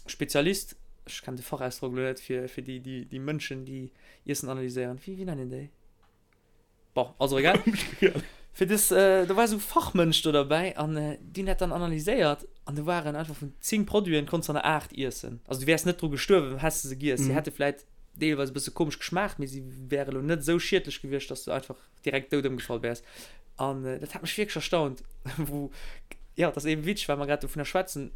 Spezialist, ech kennen de Fachausdrock elo net, fir fir déi déi déi Mënschen déi Iessen analyséieren, wéi wéi nennen een déi? Bon, ass och egal. Fir dës, do war esou Fachmënsch do derbäi an déi hunn dat dann analyséiert an do waren einfach vun 10 Produiten konns de der 8 iessen. Also du wäers net dru gestuerwen, häss de se giess. Si hätte vläit deelweis e bësse komesch geschmaacht, mee si wäre elo net esou schiedlech gewiescht, dass du einfach direkt dout ëmgefall wäers. An dat hat mech wierklech erstaunt, wou, jo, dat ass eben witzeg, well mer grad dovunner schwätzen,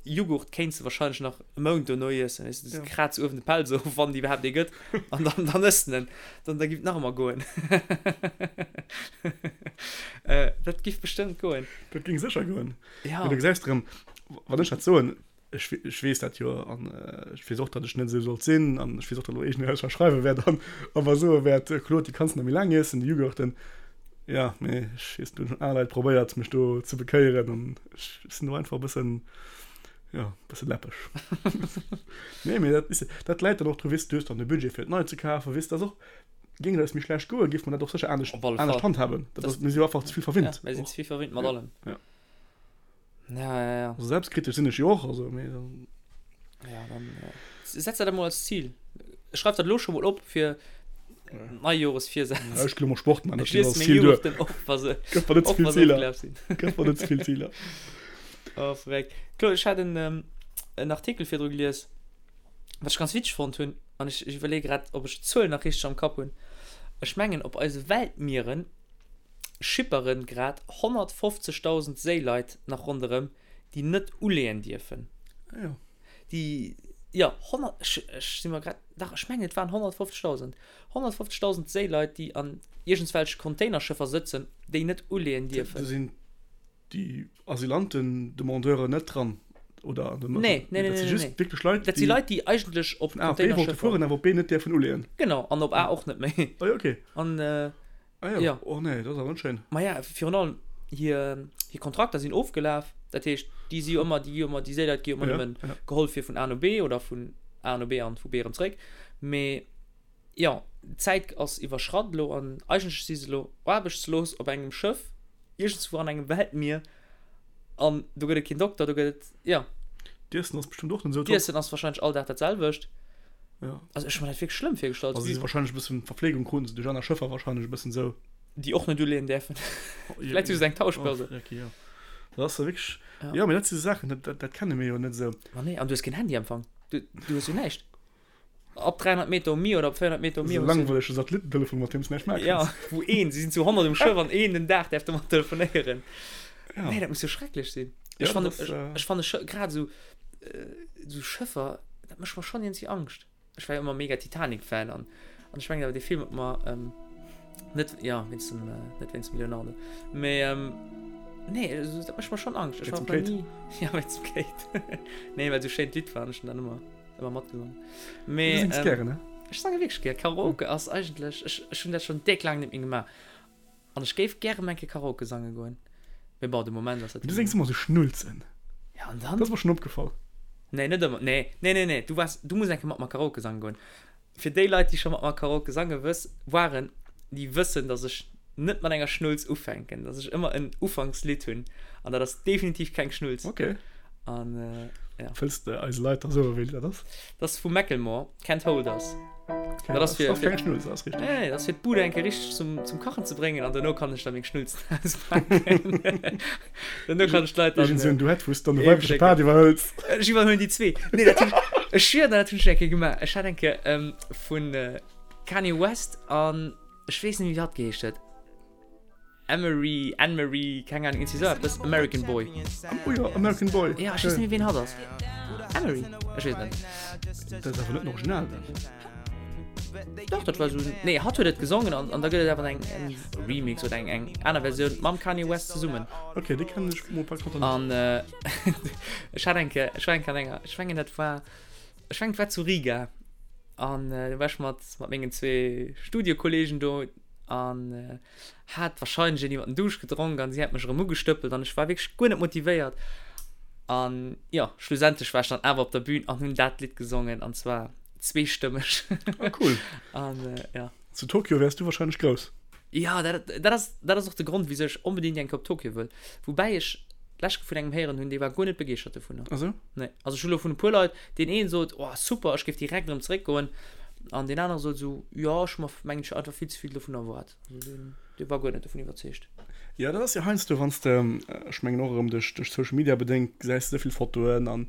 Jughurt kéints de wahrscheinlech nach e Mount dono iessen, weess de, du kraz uewen de Pelz of, wann et iwwerhaapt ee gëtt, an dann, dann ëss de en, dann, da giff et nach ëmmer goen. Dat giff bestëmmt goen. Dat géing sécher goen. Ja. Mee du gesäis erëm, wann ech dat soen, Ech, ech weess dat jo an ech weess och, datt ech net esou sollt sinn an ech weess och, datt elo iergendeen eis verschreiwe wäert an a mer soe wäert, Claude, déi kanns de nach méi laang iessen, déi Jughurten. Ja, mee ech weess, do hunn schon aner Leit probéiert, mech do ze bekéieren an ech sinn do einfach e bëssen, jo, e bësse läppeg. Nee, mee dat, weess de, dat läit dann och dru, weess de, du hues dann de Budget fir et nei ze kafen, weess de, dat ass och, géing et eis méi schlecht goen, géife mer dat och sécher anescht, anescht handhaben. Dat ass, mir si jo einfach ze vill verwinnt. Ja, mir sinn ze vill verwinnt mat allem. Ja. Ja, ja, ja. Also selbstkritisch sinn ech jo och, also mee dann. Ja, dann äh, setz dat emol als Ziel. Schreif dat lo scho mol op fir Neijoresvirsätz. Ja, ech gelo mol Sport man, dat als Ziel duer. Op, wa se, Gëff mer net ze vill Ziler. Gëff mer net ze vill Ziler. Oh, verréckt. Claude, ech hat en, ähm, en Artikel virdru gelies, wat ech ganz witzeg fonnt hunn, an ech, ech iwwerleeë grad, ob ech d'Zuel nach richteg am Kapp hunn. Ech mengen, op eise Weltmieren schipperen grad 150.000 Séileit nach ronderëm, déi net uleeën dierfen. Ah jo. Déi, jo, 100, ech, ech si mer grad, dach, ech mengen et waren 150.000. 150.000 Séileit, déi an iergendswelche Containerschëffer sëtzen, déi net uleeën dierfen. Do sinn déi Asylanten-Demandeuren net dran, oder? Nee, nee, nee, Dat si nee, just nee. wierklech Leit, Dat si déi Leit, déi eigentlech op vun A op B wollte Containerschëffer. fueren, awer op B net däerfen uleeën. Genau, an op A och net méi. Ah jo, okay. An, Ah jo, Ja. oh nee, dat ass awer net schéin. Ma ja, virun allem hir, hir Kontrakter sinn ofgelaf. Dat heescht, déi si jo ëmmer, déi gi jo ëmmer, déi Séileit gi jo ëmmer Ja, nëmmen ja. geholl fir vun A no B oder vun A no B an vu B erëm zréck. Mee jo, d'Zäit ass iwwerschratt elo an eigentlech si se elo aarbechtslos op engem Schëff iergendswou an engem Weltmier an do gëtt et keen Dokter, do gëtt et, jo. D'Iessen ass bestëmmt och net esou top. D'Iessen ass warscheinlech all Dag dat selwecht. Ja. Also ech hu mer dat wierklech schlëmm virgestallt. Also si si warscheinlech e bëssen, Verfleegung kruten se duerch aner Schëffer warscheinlech e bëssen esou. Déi och net uleeën däerfen. Vläicht hu se eng Tauschbörse. Oh, okay, jo. Dat ass jo wierklech, ja. Jo, mee dat si Saachen, dat, dat, dat kenne mir jo net esou. Ma nee, an du hues keen Handyempfang. Du, du hues jo näischt. Ab 300 Meter um Mier oder ab 400 Meter um Mier. Esou langweilege Satellittentelefon, mat deem s näischt maache kanns. Ja, wou een, si sinn zu 100 um Schëff an een den Dag däerf domat telefonéieren. Ja. Nee, dat muss jo schrecklech sinn. Ja, Ech fanne, dat ass, ech, ech fanne Schë, grad esou, esou Schëffer, dat mécht mer schonn iergendwéi Angscht. Ech war jo ëmmer mega Titanic-Fan an, an ech mengen awer dee Film huet mer ähm, net, ja, wéinst dem, äh, net wéinst dem Leonardo, mee ähm, nee, also, dat mécht mer schonn Angscht. Ech Wéinst war dem nach Kate? ni, ja, wéinst dem Kate. Nee, well esou schéin d'Lidd war an ech hunn dat ëmmer, ëmmer matgesongen. Du Mee sings ähm, gären, ne? Ech sange wierklech gär. Karaoke ass eigentlech, ech, ech hunn dat schonn déck laang net méi gemaach. An ech géif gäre mol eng Kéier Karaoke sange goen. Mee bon, de Moment ass dat Du séngs ëmmer sou Schnulzen. Ja, an dann? Dat ass mer schonn opgefall. Nee, net ëmmer. Nee, nee, nee, nee. Du waars, du muss eng Kéier mat mer Karaoke sange goen. Fir déi Leit, déi scho mat mer Karaoke sange wëss, waren, déi wëssen, dass ech net mat enger Schnulz ufänken, dass ech ëmmer en Ufankslidd hunn. An dat ass definitiv keng Schnulz. Okay. An, ja. Wëlls de eise Leit da soen, wéi dat ass? Dat ass vu Macklemore, Can't Hold Us. Okay, Dat ass fir, ass keng Schnulz, dat ass richteg. Nee, dat ass fir d'Bud eng Kéier richteg zum, zum Kachen ze bréngen an duerno kann ech da meng Schnulzen auspaken. Duerno kann ech d'Leit dann. Iergend esou en Duett, wou s de dann de weibleche Part iwwerhëls. Ech iwwerhuelen déi zwee. Nee, dat hunn ech, ech schwier der, dat hunn ech eng Kéier gemaach. Ech hat eng Kéier ähm, vun Kanye West an ech weess net méi, wéi hatt geheescht huet. Emery, Anne-Marie, keng Ahnung, iergendwéi esou eppes, American Boy. Oh jo, American Boy. Ja, ech weess net méi, ween hatt ass. Emery? Ech weess et net. Dat ass awer net den Original dann. Dach, dat war esou, nee, hatt huet et gesongen an, an da gëtt et awer eng, eng Remix oder eng, eng aner Versioun mam Kanye West zesummen. Ok, déi kennen ech mol par contre net. An ech hat eng Kéier, ech war eng Kéier an enger, ech mengen dat war, ech mengen et war zu Riga an do war ech mat, mat mengen zwee Studiekollegen do an hat wahrscheinlech een iwwer den Duuscht gedronk an si hat mech erëm ugestëppelt an ech war wierklech guer net motivéiert an jo, schlussendlech war ech dann awer op der Bühn an hunn dat Lidd gesongen an zwar zweestëmmeg. Ah cool. An jo. Zu Tokio wäers du wahrscheinlech grouss. Jo, dat, dat ass, dat ass och de Grond wisou ech onbedéngt eng Kéier op Tokio wëll. Woubäi ech d'lescht Kéier vun engem héieren hunn, dee war guer net begeeschtert dovunner. Ah sou? Nee, also ech hu lo vun e puer Leit, deen een sot, oh super, ech géif direkt erëm zeréckgoen, an deen anere sot esou, jo, ech hu mer mengen ech einfach vill ze vill dovun erwaart. Also deen, dee war guer net dovun iwwerzeegt. Jo, dat ass jo heiansdo, wann s de, ech mengen och erëm duerch, duerch Social Media bedéngt, gesäis de esou vill Fotoen an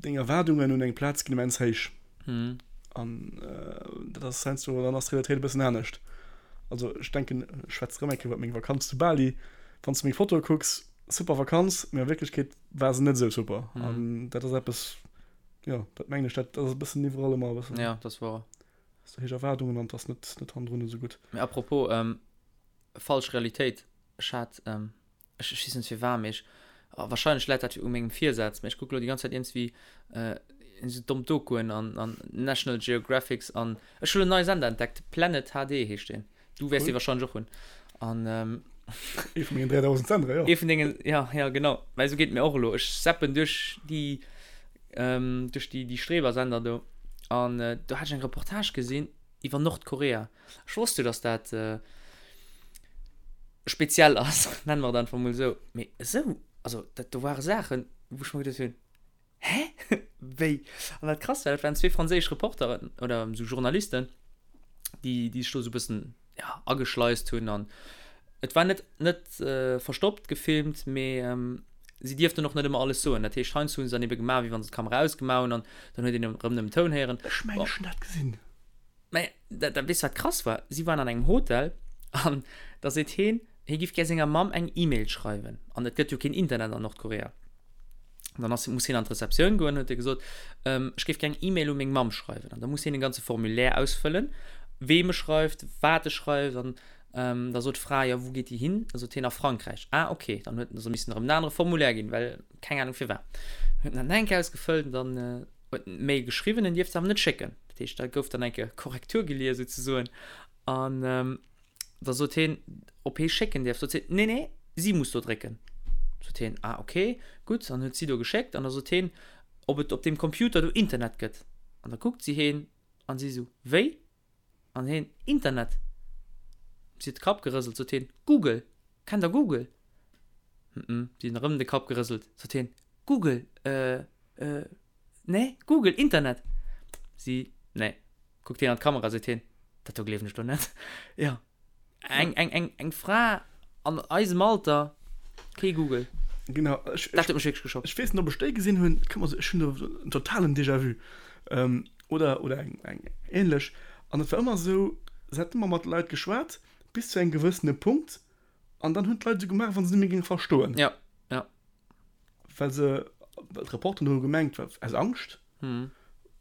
deng Erwaardungen un eng Plaz ginn immens héich. An dat ass heiansdo, dann ass d'Realitéit e bëssen anescht. Also ech denken, ech schwätze erëm eng Kéier iwwer meng Vakanz zu Bali, wann s de meng Fotoe kucks, super Vakanz, mee a Wierklechkeet war se net esou super. Mhm. An dat ass eppes, jo, dat mengen ech, dat ass e bëssen iwwerall ëmmer e bëssen. Ja, dat ass wouer. Hast du héich Erwaardungen an 't ass net, net hannendrun esou gutt. Mee apropos ähm, falsch Realitéit, ech hat, ähm, ech, ech weess net firwat, mee ech, oh, wahrscheinlech läit dat u mengem Virsaz, mee ech kucke lo déi ganz Zäit iergendswéi äh, esou domm Dokuen an, an National Geographics an ech hu lo en neie Sender entdeckt, Planet HD heescht deen. Du wäers dee wahrscheinlech och hunn. An ähm, Ee vun mengen 3000 Sendere, jo. Ee vun dengen, ja, ja, genau. Well esou geet et mir och elo. Ech zappen duerch déi, ähm, duerch déi, déi Strebersender do. An äh, do hat ech eng Reportage gesinn iwwer Nordkorea. Ech wosst jo, dass dat äh, speziell ass, nennen mer et einfach mol esou. Mee esou, also dat do ware Saachen, wou ech mer geduecht hunn, Hä? Wéi? An dat Krasst war, dat waren zwee franséisch Reporteren oder esou Journalisten, déi, déi sech do esou e bëssen, ja, ageschleist hunn. An et war net, net verstoppt gefilmt, mee si dierften och net ëmmer alles soen. Dat heescht, heiansdo hu se dann ebe gemaach, wéi wa se d'Kamera ausgemaach hunn an dann huet een erëm nëmmen Toun héieren. Ech mengen, ech hunn dat gesinn. Mä dat, dat, weess du, wat krass war? Si waren an engem Hotel an da seet heen, hie giff gär senger Mamm eng E-Mail schreiwen. An et gëtt jo keen Internet an Nordkorea. Dann ass, muss hien an d'Rezeptioun goen, huet e gesot, ähm, ech géif gär eng E-Mail u meng Mamm schreiwen. An da muss hien e ganze Formulaire ausfëllen, weem e schreift, wat e schreift. An ähm, da sot d'Fra, jo, wou geet déi hin? Da sot hien, a Frankräich. Ah, okay. Dann huet en se missen erëm en anere Formulaire ginn, well keng Anung firwat. Huet en dat nach eng Kéier ausgefëllt an dann äh, huet en d'Mail geschriwwen, en dierft se awer net schécken. Dat heescht, da gouf dann eng Kéier Korrektur gelies souzesoen. An ähm, Da sot hien, ob hie schécken dierf. Sot si, Nee, nee, si muss do drécken. Sot hien, Ah, okay, gutt. An huet si do geschéckt. An da sot hien, ob et op deem Computer do Internet gëtt. An da kuckt si hien an si esou, Wéi? An hien, Internet. Si huet de Kapp gerëselt. Sot hien, Google, kennt der Google? Hm, si huet erëm de Kapp gerëselt. Sot hien, Google, äh, äh, nee, Google, Internet. Si, Nee. Kuckt hien an d'Kamera, seet hien, Dat do gleewen ech lo net. Jo, eng, eng, eng, eng Fra an eisem Alter, kee Google. Genau, ech, Dat huet mech wierklech geschockt. Ech weess net, ob ech déi gesinn hunn. Et kënnt mer esou, ech hunn do en totalen Déjà-vu. Oder, oder eng, eng änlech. An et war ëmmer esou, se hat ëmmer mat Leit geschwat, bis zu engem gewëssene Punkt. An dann hunn d'Leit esou gemaach, wann se net méi géinge verstoen. Ja, ja. Well se, well d'Reporteren hu gemengt, well aus Angscht,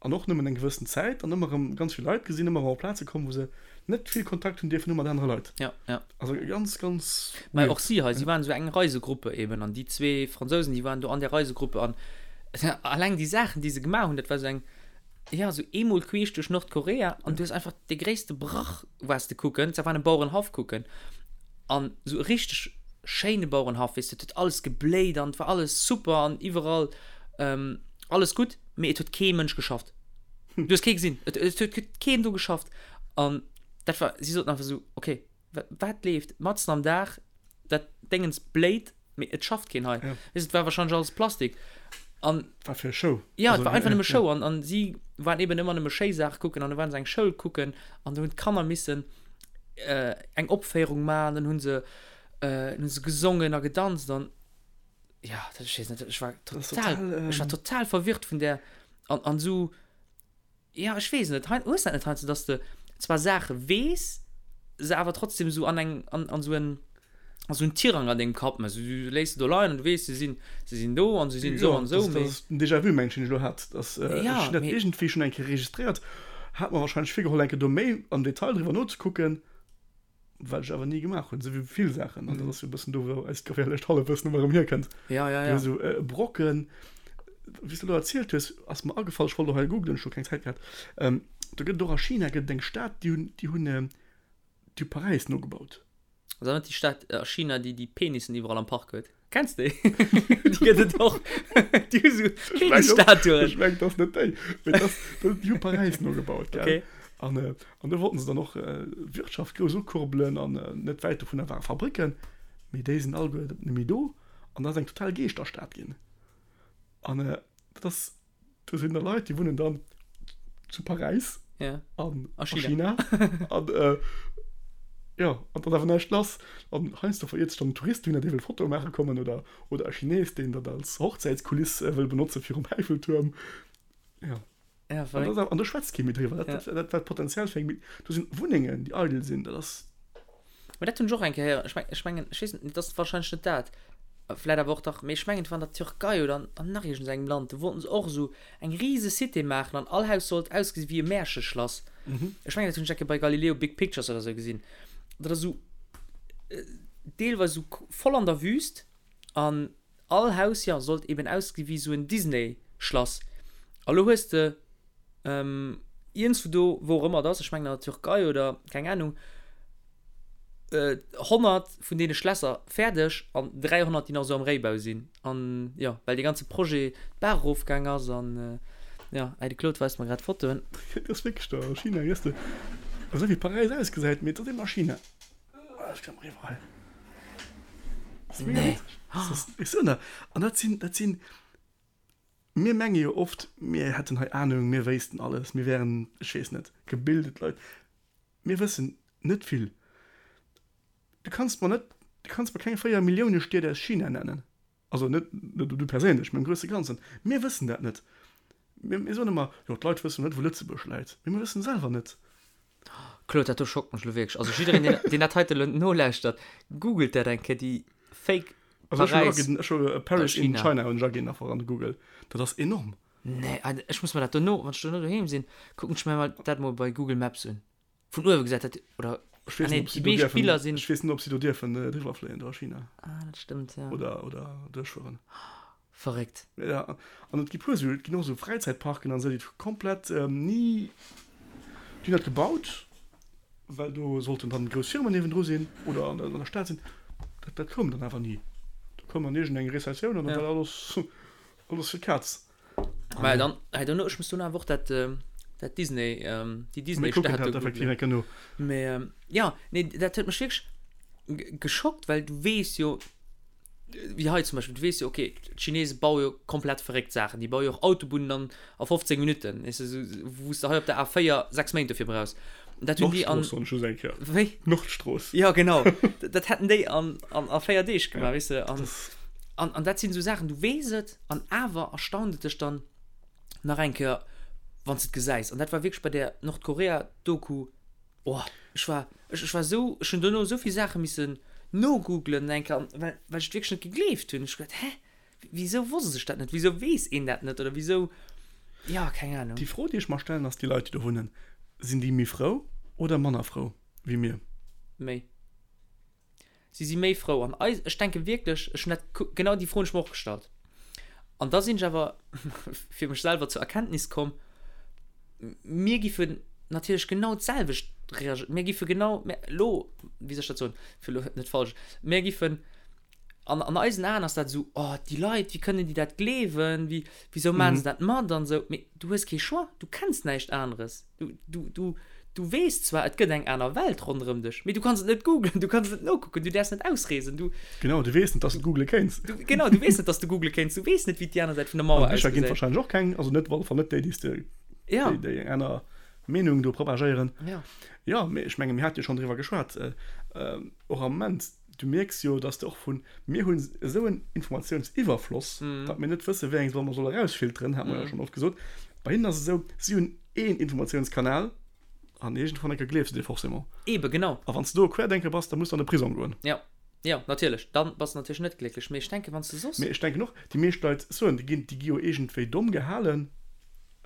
an och nëmmen eng gewëssen Zäit, an ëmmer erëm ganz vill Leit gesinn, ëmmer erëm op Plaze komm, wou se net vill Kontakt hunn dierfen hu mat anere Leit. Ja, ja. Also ganz, ganz Mä och si hei, si waren esou eng Reisegruppe eben, an déi zwee Fransousen, déi waren do an där Reisegruppe, an alleng déi Saachen, déi se gemaach hunn, dat war esou eng. Ja, sou eemol queesch duerch Nordkorea an du hues einfach dee gréisste Brach waars de kucken, zwar war en Bauerenhaff kucken an sou e richteg schéine Bauerenhaff, weess de, et huet alles gebléit an et war alles super an iwwerall alles gutt, mee et huet kee Mënsch geschafft. Du hues kee gesinn, et huet keen do geschafft an dat war, si soten einfach sou, okay, wat leeft matzen am Dag, dat Déngens bléit, mee et schafft keen hei. Ja. Weess, et war wahrscheinlech alles Plastik. An War fir Show. Ja, et war einfach nëmme Show. An, an si waren eben ëmmer nëmme schéi Saache kucken an da waren se eng Schoul kucken an do hunn d'Kanner missen äh, eng Opféierung maachen, dann hunn se, äh, hunn se gesongen a gedanzt an ja, dat, ech weess net, ech war Das ist total, total, ech war ähm, total verwirrt vun där an, an esou Jo, ech weess net. Hei, hues dat net heiansdo, dass de zwar Saache weess, se awer trotzdem esou an eng, an, an esou en, an esou en Tirang an dengem Kapp méchs. Du léiss se do leien an du weess, se sinn, se sinn do an se sinn esou Jo, an esou, dat mee. ass den Déjà-vu, mengen ech, deen ech elo hat. Dass, ech Ja, hunn dat mee. iergendwéi schonn eng Kéier registréiert, hat mer warscheinlech virgeholl, eng Kéier do méi am Detail driwwer nozekucken. Wat ech awer ni gemaach hunn, esou wéi vill Saachen. An dat ass jo e bëssen do, wou eist geféierlecht Hallefwëssen ëmmer erëm hierkënnt. Ja, ja, ja. Esou e Brocken, wéi s de elo erzielt hues, ass mer agefall, ech wollt och hei googlen, ech hu keng Zäit gehat, do gëtt et och a China gëtt et eng Stad, déi hunn, déi hunn, déi hu Paräis nogebaut. Ass dat net déi Stad a China, déi déi Penissen iwwerall am Park huet? Kenns déi? Déi gëtt et och. Déi hu sou Penisstatuen. Ech mengen, dat ass net déi. Mee dat ass, déi hu Paräis nogebaut, gell? Okay. An, an do wollten se dann och d'Wirtschaft grouss ukurbelen an net wäit dovunner ware Fabricken. Mee déi sinn alleguer net méi do an dat ass eng total Geeschterstad ginn. An dat ass. Do sinn da Leit, déi wunnen dann zu Paräis ja. an a China. China. an äh, ja, an dann awer näischt lass. An heiansdo veriert sech dann en Tourist dohinner, dee wëll Fotoe maache kommen oder, oder e Chines, deen dat als Hochzäitskuliss äh, wëll benotze virum Äifeltuerm. Ja. Ja, An, verréckt. dat, an do schwätzt kee méi driwwer. Dat, Ja. dat, dat war d'Potenzial fir eng, do sinn Wunnengen, déi eidel sinn. Dat ass. Mä dat hunn ech och eng Kéier héieren. Ech meng, ech mengen, ech weess net, dat ass wahrscheinlech net dat. Vläit awer och dach, mee ech mengen, et war an der Türkei oder an, an nach iergendengem Land, do wollten se och esou eng rise Cité maachen an all Haus sollt ausgesi wéi e Märcheschlass. Ech mengen, dat hunn ech eng Kéier bei Galileo Big Pictures oder esou gesinn. Dat ass esou deelweis esou voll an der Wüst an all Haus, jo, sollt eben ausgesi wéi esou en Disney-Schlass. A lo hues de Iergendswou do, wou och ëmmer et ass, ech mengen an der Türkei oder keng Ahnung, 100 vun deene Schlässer fäerdeg an 300 déi nach esou am Réibau sinn. An jo, well dee ganze Projet d'Baach erofgaang ass an jo, hei de Claude weist mer grad Fotoen. Et ass wierklech do a China, weess de, esou wéi Paräis ausgesäit, mee et ass eben a China. Ech kann mer iwwerall. Nee. Ech soen der, an dat sinn, dat sinn. Mir menge jo oft, mir hätten hei Ahnung, mir wéissten alles, mir wären, ech weess net, gebildet Leit. Mir wëssen net vill. Du kanns mer net, du kanns mer keng 4 Millioune Stied aus China nennen. Also net, net du perséinlech, mä am grousse Ganzen. Mir wëssen dat net. Mir, mir soen ëmmer, jo d'Leit wëssen net, wou Lëtzebuerg läit. Mee mir wëssen selwer net. Claude, dat do schockt mech elo wierklech. Also jiddereen, deen, deen dat heite elo nolauschtert, googelt dat eng Kéier, déi Fake Also ech hunn Paräis aginn, ech hu Paris a in China. China hunn ech aginn einfach an de Google. Dat ass enorm. Nee, Alter, ech muss mer dat dono, wann ech dono doheem sinn, kucken ech mir mol dat mol bei Google Maps un. Vun uewe gesäit dat, oder, Ech ah weess nee, net, ob si déi do meescht dierfen, Biller sinn. ech weess net, ob si do dierfen driwwer fléien do a China. Ah, dat stëmmt, ja. Oder, oder duerchfueren. Verréckt. Ja, an et gi puer esou, et ginn och esou Fräizäitparken an esou, déi komplett ni, déi hunn dat gebaut, well do sollten dann grouss Firmen niewendru sinn oder an der Stad sinn. Dat, dat koum dann awer ni. Do koum dann iergendeng Rezessioun an dann war alles, alles fir d'Kaz. Mä dann, I don't know, ech muss dono awer och dat, dat Disney, déi Mir kucken Disney-Stad dat do effektiv googlen. eng Kéier no. Mä jo, nee, dat huet mech wierklech geschockt, well du weess jo, wéi hei zum Beispill, du weess jo, okay, d'Chinese baue jo komplett verréckt Saachen, déi baue jo och Autobunnen an a 15 Minutten, weess de, sou wou s de hei op der A4 6 Méint dofir brauchs. Dat hunn déi an. Nordstrooss soen ech just eng Kéier. Wéi? Nordstrooss. Ja, genau. Dat hätten déi an an a 4 Deeg gemaach, weess de. An an an dat sinn esou Saachen, du weess et an awer erstaunt et dech dann nach eng Kéier, wann s de et gesäis. An dat war wierklech bei där Nordkorea-Doku. Oh, ech war, ech, ech war esou, ech hunn dono esou vill Saache missen nogooglen eng Kéier, well, well ech et wierklech net gegleeft hunn. Ech hu geduet, hä, wisou wosst ech dat net, wisou weess een dat net oder wisou, jo, keng Ahnung. Déi Fro, déi ech mer stellen, ass, déi Leit, déi do wunnen, sinn déi méi frou oder manner frou wéi mir? Méi. Si si méi frou. An eis, ech denke wierklech, ech hunn dat, genau déi Fro hunn ech mer och gestallt. An da sinn ech awer fir mech selwer zur Erkenntnis komm. Mir giffen natierlech genau d'selwecht reagéieren. Mir giffe genau, mir, elo, wéi soll ech dat soen, fir elo net falsch, mir giffen, an, an eisen Aen ass dat esou, oh, déi Leit, wéi kënnen déi dat gleewen, wéi, wisou maachen se dat mat an esou. Mee du hues kee Choix, du kenns näischt aneres. Du, du, du, du weess zwar, et gëtt eng aner Welt ronderëm dech, mee du kanns et net googlen, du kanns et net nokucken, du däerfs net ausreesen, du. Genau, du weess net, dass du googele kéints. Du, genau, du weess net, dass du googele kéints, du weess net, wéi déi aner Säit vun der Mauer An Bicher ginn et ausgesäit. wahrscheinlech och keng, also net, op alle Fall net déi, déi s de, Ja. déi, déi eng aner Meenung do propagéieren. Ja. Jo, mee ech menge mir hate jo schonn driwwer geschwat, och am Moment, du mierks jo, dass de och vun, mir hunn esou en Informatiounsiwwerfloss, datt mir net wësse wéi eng solle mer solle erausfilteren, hate mer jo schonn oft gesot. Bei hinnen ass et esou, si hunn een Informatiounskanal an iergendwann eng Kéier gleefs de dee forcément. Eebe genau. A wann s de do e Querdenker bass, da muss de an de Prisong goen. Jo, jo, natierlech, da bass de natierlech net glécklech. Mee ech denken, wann s de soss. Mee ech denken och, déi meescht Leit soen, déi ginn, déi gi jo iergendwéi domm gehalen.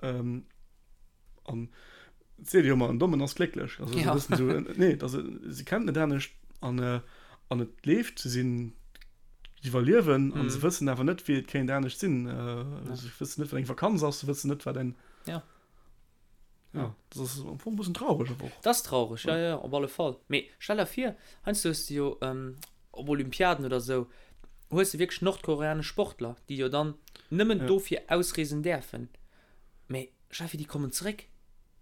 An et seet ee jo ëmmer, en Dommen ass glécklech. Also esou e bëssen esou, nee, et ass, si kennen et net anescht an, an et leeft, se sinn, iwwerliewen an se wëssen awer net, wéi et kéint anescht sinn. Se wëssen net, wat eng Vakanz ass, se wëssen net, wat eng. Ja. Ja, dat ass am Fong e bëssen traureg awer och. Dat ass traureg, ja, ja, op alle Fall. Mee stell der vir, heiansdo hues de jo op Olympiaden oder esou, hues de wierklech nordkoreanesch Sportler, déi jo dann nëmmen dofir ausreesen däerfen. Mee Steffi, déi kommen zeréck.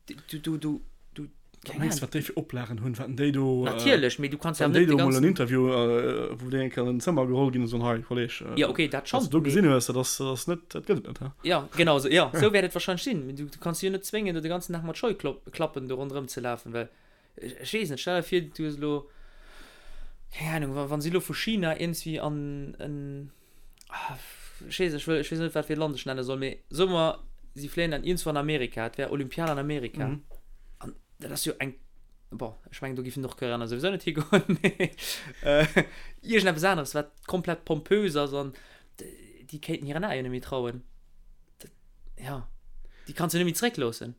Du, du, du, du, Wat mengs du, wat déi fir Oplagen hunn? Wat déi do. Natierlech, mee du kanns ja net déi do mol en Interview, wou déi eng Kéier an en Zëmmer geholl ginn an soen, hei Kolleg, ja, okay, dat schonn, wat du do gesinn hues, dat ass, dat ass net, dat gëtt et net, he? Ja, genau esou, ja, esou wäert et wahrscheinlech sinn. Mee du, du kanns si jo net zwéngen, do de ganzen Dag mat Scheuklappen do ronderëm ze lafen, well Ech weess net, stell der vir, du hues elo, keng Ahnung, wa, wa si elo vu China iergendswéi an en, ah, ech weess, ech wëll, ech weess net, wat fir e Land ech nenne soll, mee soe mer, si fléien dann iergendswou an Amerika, et wär Olympiad an Amerika. An dat ass jo eng, bon, ech mengen, do géifen d'Nordkoreaner souwisou net higoen, mee iergendeppes aneres, wat komplett pompös ass an déi kéinten hiren Aen jo net méi trauen. Dat, ja, déi kanns du net méi zréckloossen.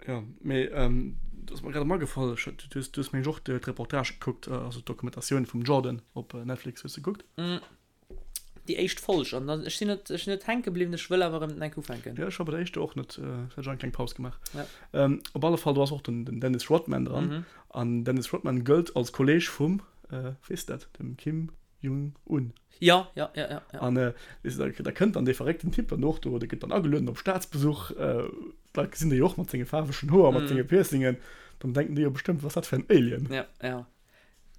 Jo, mee et ass mer grad erëm agefall, ech du hues, du hues meng ech och d'Reportage gekuckt, also d'Dokumentatioun vum Jordan op Netflix hues de gekuckt? Déi éischt Folg an dann, ech sinn net, ech sinn net hänke bliwwen, ech wëll awer erëm enk ufänken. Jo, ech war bei der éischter och net, ech hat eng kleng Paus gemaach. Ja. Op alle Fall, do ass och den, den Dennis Rodman dran an Dennis Rodman gëllt als Kolleeg vum, weess de dat, dem Kim Jong Un. Ja, ja, ja, ja, ja. An äh, weess de, da, da kënnt dann dee verréckten Typ dann och do, dee gëtt dann agelueden op Staatsbesuch. Äh, d'Leit gesinn dee jo och mat senge faarwegen Hoer, mat senge Piercingen. Dann denken déi jo bestëmmt, wat ass dat fir en Alien? Ja, ja.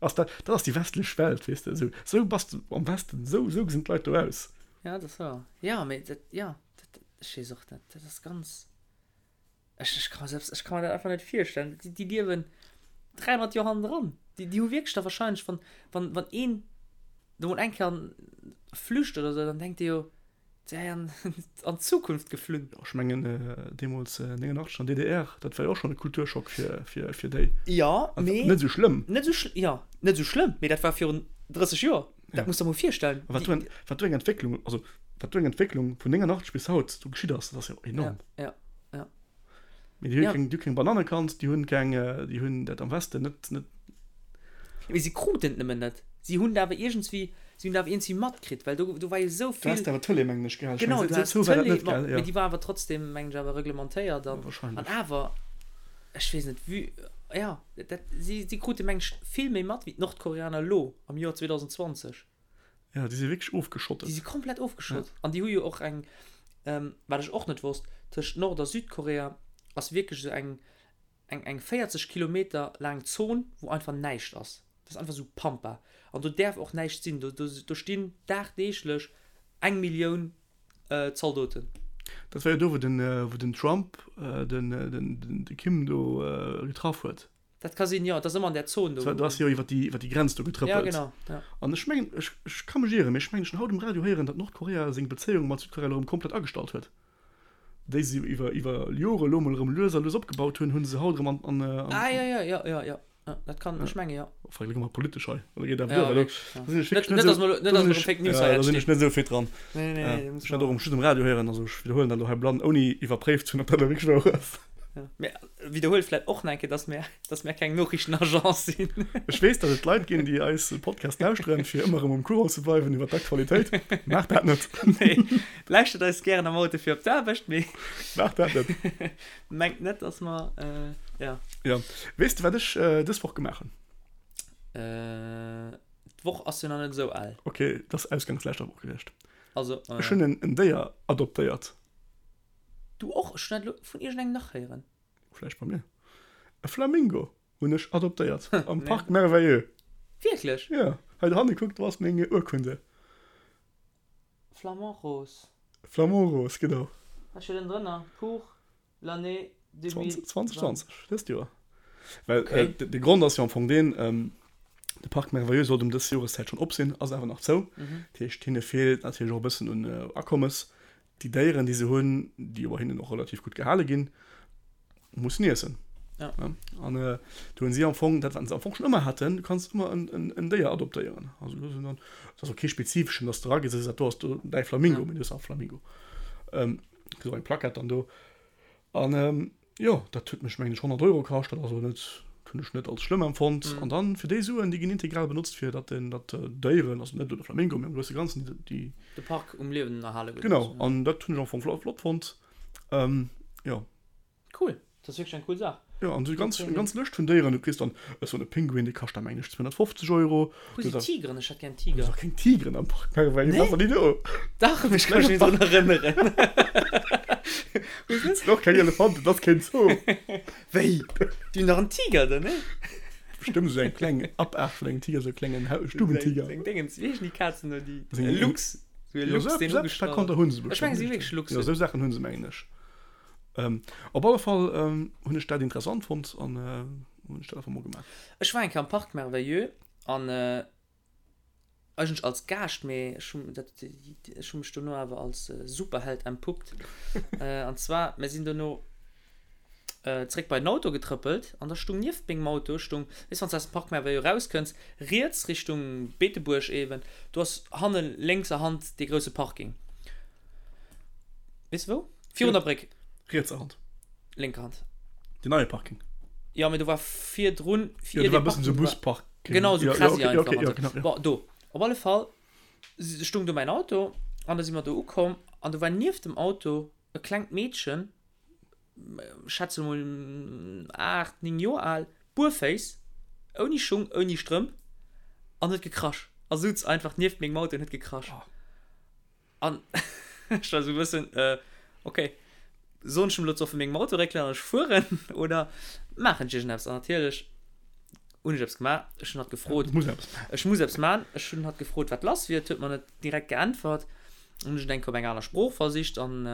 Ass dat, dat ass déi westlech Welt, weess de. Esou, esou bass de am Westen, esou, esou gesinn d'Leit do aus. Ja, dat ass wouer. Ja, mee dat, ja, dat, ech weess och net, dat ass ganz. Ech, ech ka mir selbst, ech ka mir dat einfach net virstellen. Déi, déi liewen 300 Joer hannendran. Déi, déi hu wierklech da wahrscheinlech, wann, wann, wann een do mol eng Kéier flücht oder sou, dann denkt dee jo, dee wär an, an d'Zukunft geflunn. Jo, ech mengen, deemools 89 an DDR, dat war jo och schonn e Kulturschock fir, fir, fir déi. Jo, mee. Net esou schlëmm. Net esou schl, jo, net esou schlëmm, mee dat war virun 30 Joer. Dat muss der mol virstellen. A wat do eng, wat do eng Entwécklung, also wat do eng Entwécklung vun 89 bis haut do geschitt ass, dat ass jo enorm. Ja, ja, ja. Mee déi hu keng, déi hu keng Bananne kannt, déi hunn keng, déi hunn dat am Westen net, net. Mee si kruten et nëmmen net. Si hunn et awer iergendswéi, si hunn et awer iergendswéi matkritt, well do, do war jo esou vill. Du has awer d'Tëlee, mengen ech, gell? Genau, du has d'Tëlee, ma, mee déi war awer trotzdem, mengen ech, awer reglementéiert an, an awer, ech weess net, vue, ja, dat, si, si krute, mengen ech, vill méi mat wéi d'Nordkoreaner elo am Joer 2020. Ja, déi si wierklech ofgeschottet. Déi si komplett ofgeschott. Ja. An déi hu jo och eng, ähm, wat ech och net wosst, tëscht Nord a Südkorea ass wierklech esou eng, eng, eng 40 Kilometer laang Zon, wou einfach näischt ass. Dat ass einfach esou Pampa. An do däerf och näischt sinn. Do, do, do stinn dagdeeglech eng Millioun äh, Zaldoten. Dat war jo do, wou den, wou den Trump den, den, de Kim do getraff huet. Dat ka sinn, jo. Et ass ëmmer an där Zon do. Do ass jo iwwer déi, iwwer déi Grenz do getrëppelt. Ja, genau, ja. An ech mengen, ech, ech ka mech ieren, mee ech mengen, ech hunn haut um Radio héieren, datt Nordkorea seng Bezéiung mat Südkorea elo erëm komplett agestallt huet. Déi se iwwer, iwwer Jore elo mol erëm lues a lues opgebaut hunn, hu se haut erëm an, an, an. Ah, jo, jo, jo, jo, jo. Ja, dat kann, ech menge jo. Enfin, elo gi mer politesch hei. Oder geet dat duer? Ja, wierklech, ja. Da sinn ech wierklech net esou, net, dass mer erëm Fake News hei Da sinn ech net esou fit dran. Nee, nee, nee. Ech hat och just um Radio héieren, also ech widderhuelen dat elo hei blann, ouni iwwerpréift ze hunn, ob dat elo wierklech wouer ass. Ja. Mir widderhuele vläicht och nach eng Kéier, dass mir, dass mir keng Noriichtenagence sinn. Ech weess, datt et Leit ginn, déi eis Podcast lauschteren, fir ëmmer erëm um Courant ze bleiwen iwwer d'Aktualitéit. Maacht dat net! Nee, lauschtert eis gären am Auto fir op d'Aarbecht, mee. Maacht dat net! Mengt net, dass mer, ja. Ja. Weess de, wat ech dës Woch gemaach hunn? D'Woch ass jo nach net esou al. Ok, dat ass ausgangs leschter Woch gewiescht. Also, Ech hunn en Déier adoptéiert. Du och? Ech hunn dat elo vun iergendengem nach héieren. Vläicht bei mir. E Flamingo hunn ech adoptéiert am Parc Merveilleux. Wierklech? Jo. Hei dohanne, kuck, do ass meng Urkunde. Flamand rose. Flamand rose, genau. Wat steet ënnendrënner? Pour l'année 2020. 2020, dëst Joer. Well okay. äh, de Grond ass jo am Fong deen, ähm, de Parc Merveilleux sollt um dës Joreszäit schonn op sinn, ass awer nach zou. Mhm. Dat heescht, hinne feelt natierlech och e bëssen un äh, Akommes. Déi Déieren, déi se hunn, déi jo bei hinnen och relativ gutt gehale ginn, mussen iessen. Ja. Ja? An äh, do hunn si am Fong, dat wat se am Fong schonn ëmmer haten, du kanns ëmmer en, en, en Déier adoptéieren. Also, do sinn dann, dat ass och kee spezifeschen, dass du eragees a sees, dat do ass do däi Flamingo, ja. mee du hues awer Flamingo. Ähm, Kriss och eng Plackett dann do. An jo, dat huet mech mengen ech 100 Euro kascht, dat ass elo net, hunn ech net als schlëmm empfonnt. An dann fir déi Suen, déi ginn integral benotzt fir datt den, datt d'Déieren, also net elo de Flamingo, mee am grousse Ganzen déi. De Park um Liewen erhale gëtt. Genau, an dat hunn ech am Fong flott fonnt. Jo. Cool, dat ass wierklech eng cool Saach. Jo, an esou ganz, eng ganz Lëscht vun Déieren. Du kriss dann esou e Pinguin, dee kascht da mengen ech 250 Euro. Wou sinn d'Tigeren? Ech hätt gär en Tiger. Do si keng Tigeren am Parc Merveilleux, nee? War déi do? Dach, ech ka mech net drun erënneren. Et sinn och keng Elefanten, et ass keen Zoo. Wéi? Déi hunn dach en Tiger do, nee? Bestëmmt esou eng kleng Apaart vun engem Tiger, esou e klengen Stubentiger. Seng Dingens, wéi heeschen déi Kazen do, déi Luchs? Esou e Luchs, deen ugestrach ass. Ech mengen, se si wierklech Luchsen. Jo, esou Saachen hu se, mengen ech. Op alle Fall hunn ech dat interessant fonnt an hunn ech dat einfach mol gemaach. Ech war eng Kéier am Parc Merveilleux an eigentlech als Gaascht, mee ech hunn dat, ech hu mech dono awer als Superheld entpuppt. An zwar, mir sinn dono zréck bei den Auto getrëppelt an da stung nieft mengem Auto stung, weess wann s de aus dem Parc Merveilleux erauskënns, riets Richtung Beetebuerg eeben, do ass hanne lénkser Hand dee grousse Parking. Weess de wou? Virun der Bréck. Rietser Hand. Lénker Hand. Den neie Parking. Jo, mee do war virdrun. Jo, do war e bëssen esou Busparking. Genau, esou Krasi einfach. Jo, okay, jo, genau, jo. Bon, do. Op alle Fall stung do mäin Auto an da si mer do ukomm an do war nieft dem Auto e klengt Meedchen, schätze mol 8, 9 Joer al, buerféiss, ouni Schung, ouni Strëmp an huet gekrasch a souz einfach nieft mengem Auto an huet gekrasch. An ech war sou e bëssen, ok, soen ech em elo ze vu mengem Auto réckelen an ech fueren oder maachen ech iergendeppes? An natierlech hunn ech eppes gemaach. Ech hunn hatt gefrot, ech muss eppes maachen. Ech hunn hatt gefrot, wat lass wier. Et huet mer net direkt geäntwert. Dann hunn ech et eng Kéier op eng aner Sprooch versicht an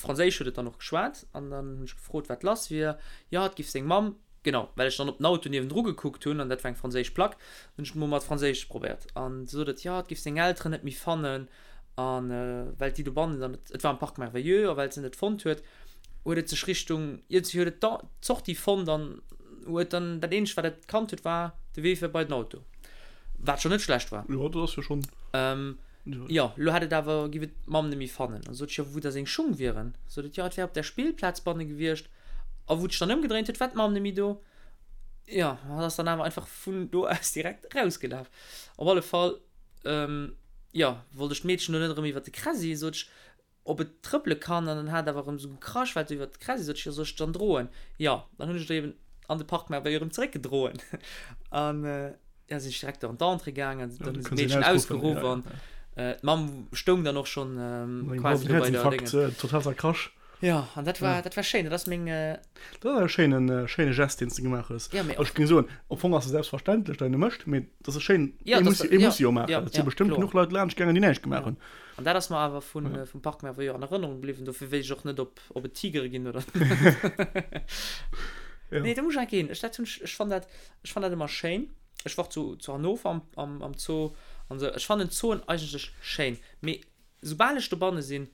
Franséisch huet et dann och geschwat. An dann hunn ech gefrot, wat lass wier. Jo, et giff seng Mamm Genau, well ech dann op den Auto niewendru gekuckt hunn an dat war eng franséisch Plack, hunn ech et mol mat Franséisch probéiert. An du sot et, jo, et géif seng Elteren net méi fannen an well déi dobannen dann, et war am Parc Merveilleux, a well se net fonnt huet, huet et sech Richtung, iergendwéi huet et d'Sortie fonnt an huet dann, dat eenzegt wat et kannt huet, war de Wee fir bei den Auto, wat schonn net schlecht war. Jo, dat ass jo schonn. Jo, lo hätt et awer, géif et d'Mamm net méi fannen. An sot ech, jo, wou da seng Schung wieren? Sot et, jo, et wär op där Spillplaz banne gewiescht. A wou et sech dann ëmgedréint huet, war d'Mamm net méi do. Jo, hatt ass dann awer einfach vun do aus direkt erausgelaf. Op alle Fall, jo, wollt ech d'Meedchen do net erëm iwwer de Kräsi, sot ech, ob et trëppele kann. An dann hat et awer erëm esou gekrasch, well et iwwer de Kräsi, sot ech, jo, soll ech dann droen? Jo, dann hunn ech et eben an de Park Merveille erëm zeréckgedroen. An ja, sinn ech direkt do an d'Entrée gaangen, an dann hunn se d'Meedchen ausgeruff an d'Mamm stoung dann och schonn quasi do bei der Déngen. Total zerkrasch. Jo, an dat war, dat war schéin. Dat ass meng. Dat ass e schéinen, schéine Gest, deen s de gemaach hues. Ja, mee och. Ech géing soen, am Fong ass e selbstverständlech, datt een e mécht, mee et ass e schéin, Ja, ee dat muss, ass, ee ja, muss e jo maachen. ja, Et si ja, bestëmmt kloer. genuch Leit laanscht gaangen, déi näischt gemaach Ja. hunn. An dat ass mer awer vun, vum Parc Merveilleux an Erënnerung bliwwen. Dofir weess ech och net, ob, ob et Tigere ginn oder net. Ja. Nee, do muss ech enk ginn. Ech, dat hunn ech, ech fann dat, ech fann dat ëmmer schéin. Ech war zu, zu Hannover am, am, am Zoo an esou. Ech fannen Zooen eigentlech schéin, mee soubal ech dobanne sinn,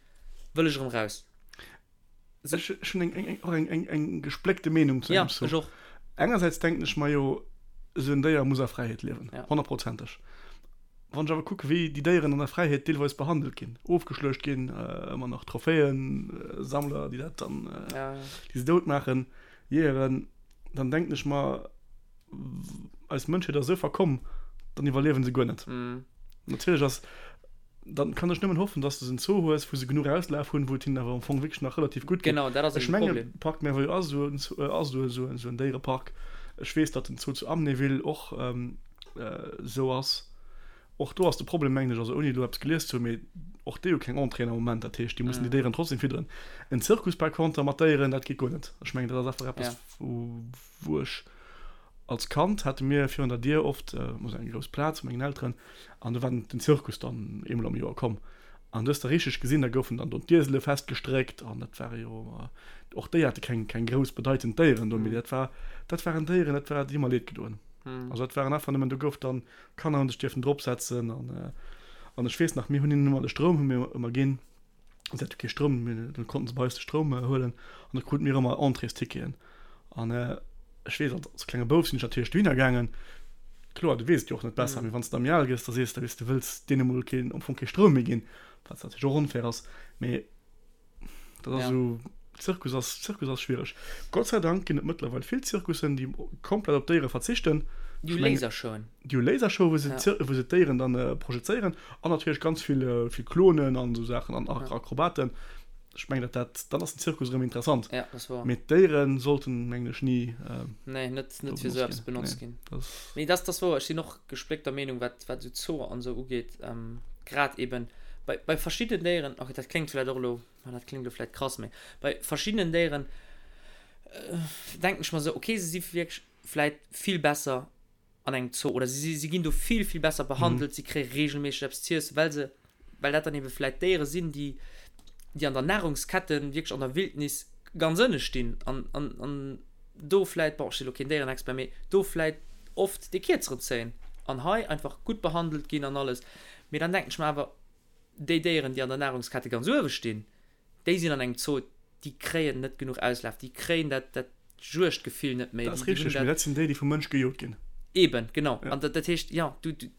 wëll ech erëm raus. Ech ech hunn eng eng och eng eng eng gespléckte Meenung zu Ja, engem Zoo. ech och. Engersäits denken ech mer jo, esou en Déier muss a Fräiheet liewen, Ja. honnertprozenteg. Wann ech awer kucke wéi déi Déieren an der Fräiheet deelweis behandelt ginn, ofgeschluecht ginn, ëmmer nach Trophäen-Sammler, déi dat dann, déi se dout maachen, Jeeëren, dann denken ech mer, eis Mënschheet ass esou verkomm, dann iwwerliewen se guer net. Natierlech ass, dann kann ech nëmmen hoffen, dass de en Zoo hues, wou se genuch Auslaf hunn, wou et hinnen awer am Fong wierklech nach relativ gutt geet. Ech mengen, Parc Merveilleux ass esou esou en Déierepark. Ech weess, datt den Zoo zu Amnéville och esou ass. Och do ass de Problem, mengen ech, also ouni elo eppes gelies ze hunn, mee och déi hu keng Entréeën am Moment. Dat heescht, déi mussen déi Déieren trotzdem fidderen. En Zirkus par contre mat Déieren, dat geet guer net. Ech mengen, dat ass einfach eppes, wou ech als Kand hate mir virun der Dier oft esou eng grouss Plaz vu mengen Elteren an do war den Zirkus dann eemol am Joer komm. An du hues da richteg gesinn, da goufen dann do d'Iesele festgestréckt an dat ware jo, och déi hate keng, keng grouss bedeitend Déieren do, mee dat war, dat waren Déieren, dat war, déi hu mer leed gedoen. Also dat waren einfach nëmmen, do gouf dann, d'Kanner hu sech dierfen dropsetzen an, an ech weess nach, mir hunn hinnen ëmmer de Stroum hu mir ëmmer ginn, si hate kee Stroum, mee da konnten se bei eis de Stroum huelen an da krute mir ëmmer Entréesticketen. An ech weess, als klenge Bouf sinn ech natierlech dohinner gaangen. Kloer, du weess et jo och net besser, mee wann s de da méi al gëss, da sees de, weess de, du wëlls deene mol keen, am Fong kee Stroum méi ginn, wat natierlech och onfair ass. Mee dat ass esou, Zirkus ass, Zirkus ass schwiereg. Gott sei Dank ginn et mëttlerweil vill Zirkussen, déi komplett op Déiere verzichten. Déi hu Lasershowen. Déi hu Lasershowen, wou se, wou se d'Déieren dann projezéieren. An natierlech ganz vill, vill Klonen an esou Saachen an Akrobaten. Ech mengen, dat, dat, dann ass den Zirkus erëm interessant. Ja, dat ass wouer. Mee d'Déiere sollten, mengen ech, ni. Nee, net, net fir esou eppes benotzt ginn. Nee, dat, dat ass wouer. Ech sinn och gespléckter Meenung, wat, wat esou Zooer an esou ugeet. Grad eben bei, bei verschiddenen Déieren, okay, dat kléngt vläicht och elo, ma dat kléngt elo vläicht krass, mee bei verschiddenen Déieren denken ech mer esou, okay, se si wierklech vläicht vill besser an engem Zoo oder si, si ginn do vill, vill besser behandelt, si kréie regelméisseg eppes z'iessen, well se, well dat dann ebe vläit Déiere sinn, déi, déi an der Nahrungskette wierklech an der Wildnis ganz ënne stinn an, an, an do vläit, bon, ech si lo keen Déierenexpert, mee do vläit oft dee Kierzeren zéien an hei einfach gutt behandelt ginn an alles. Mee dann denken ech mer awer, déi Déieren, déi an der Nahrungskette ganz uewe stinn, Déi sinn an engem Zoo, déi kréien net genuch Auslaf, déi kréien dat, dat Juegdgefill net méi. Dat ass richteg, mee dat sinn déi, déi vum Mënsch gejot ginn. Eben, genau. An dat, dat heescht, jo, du, du,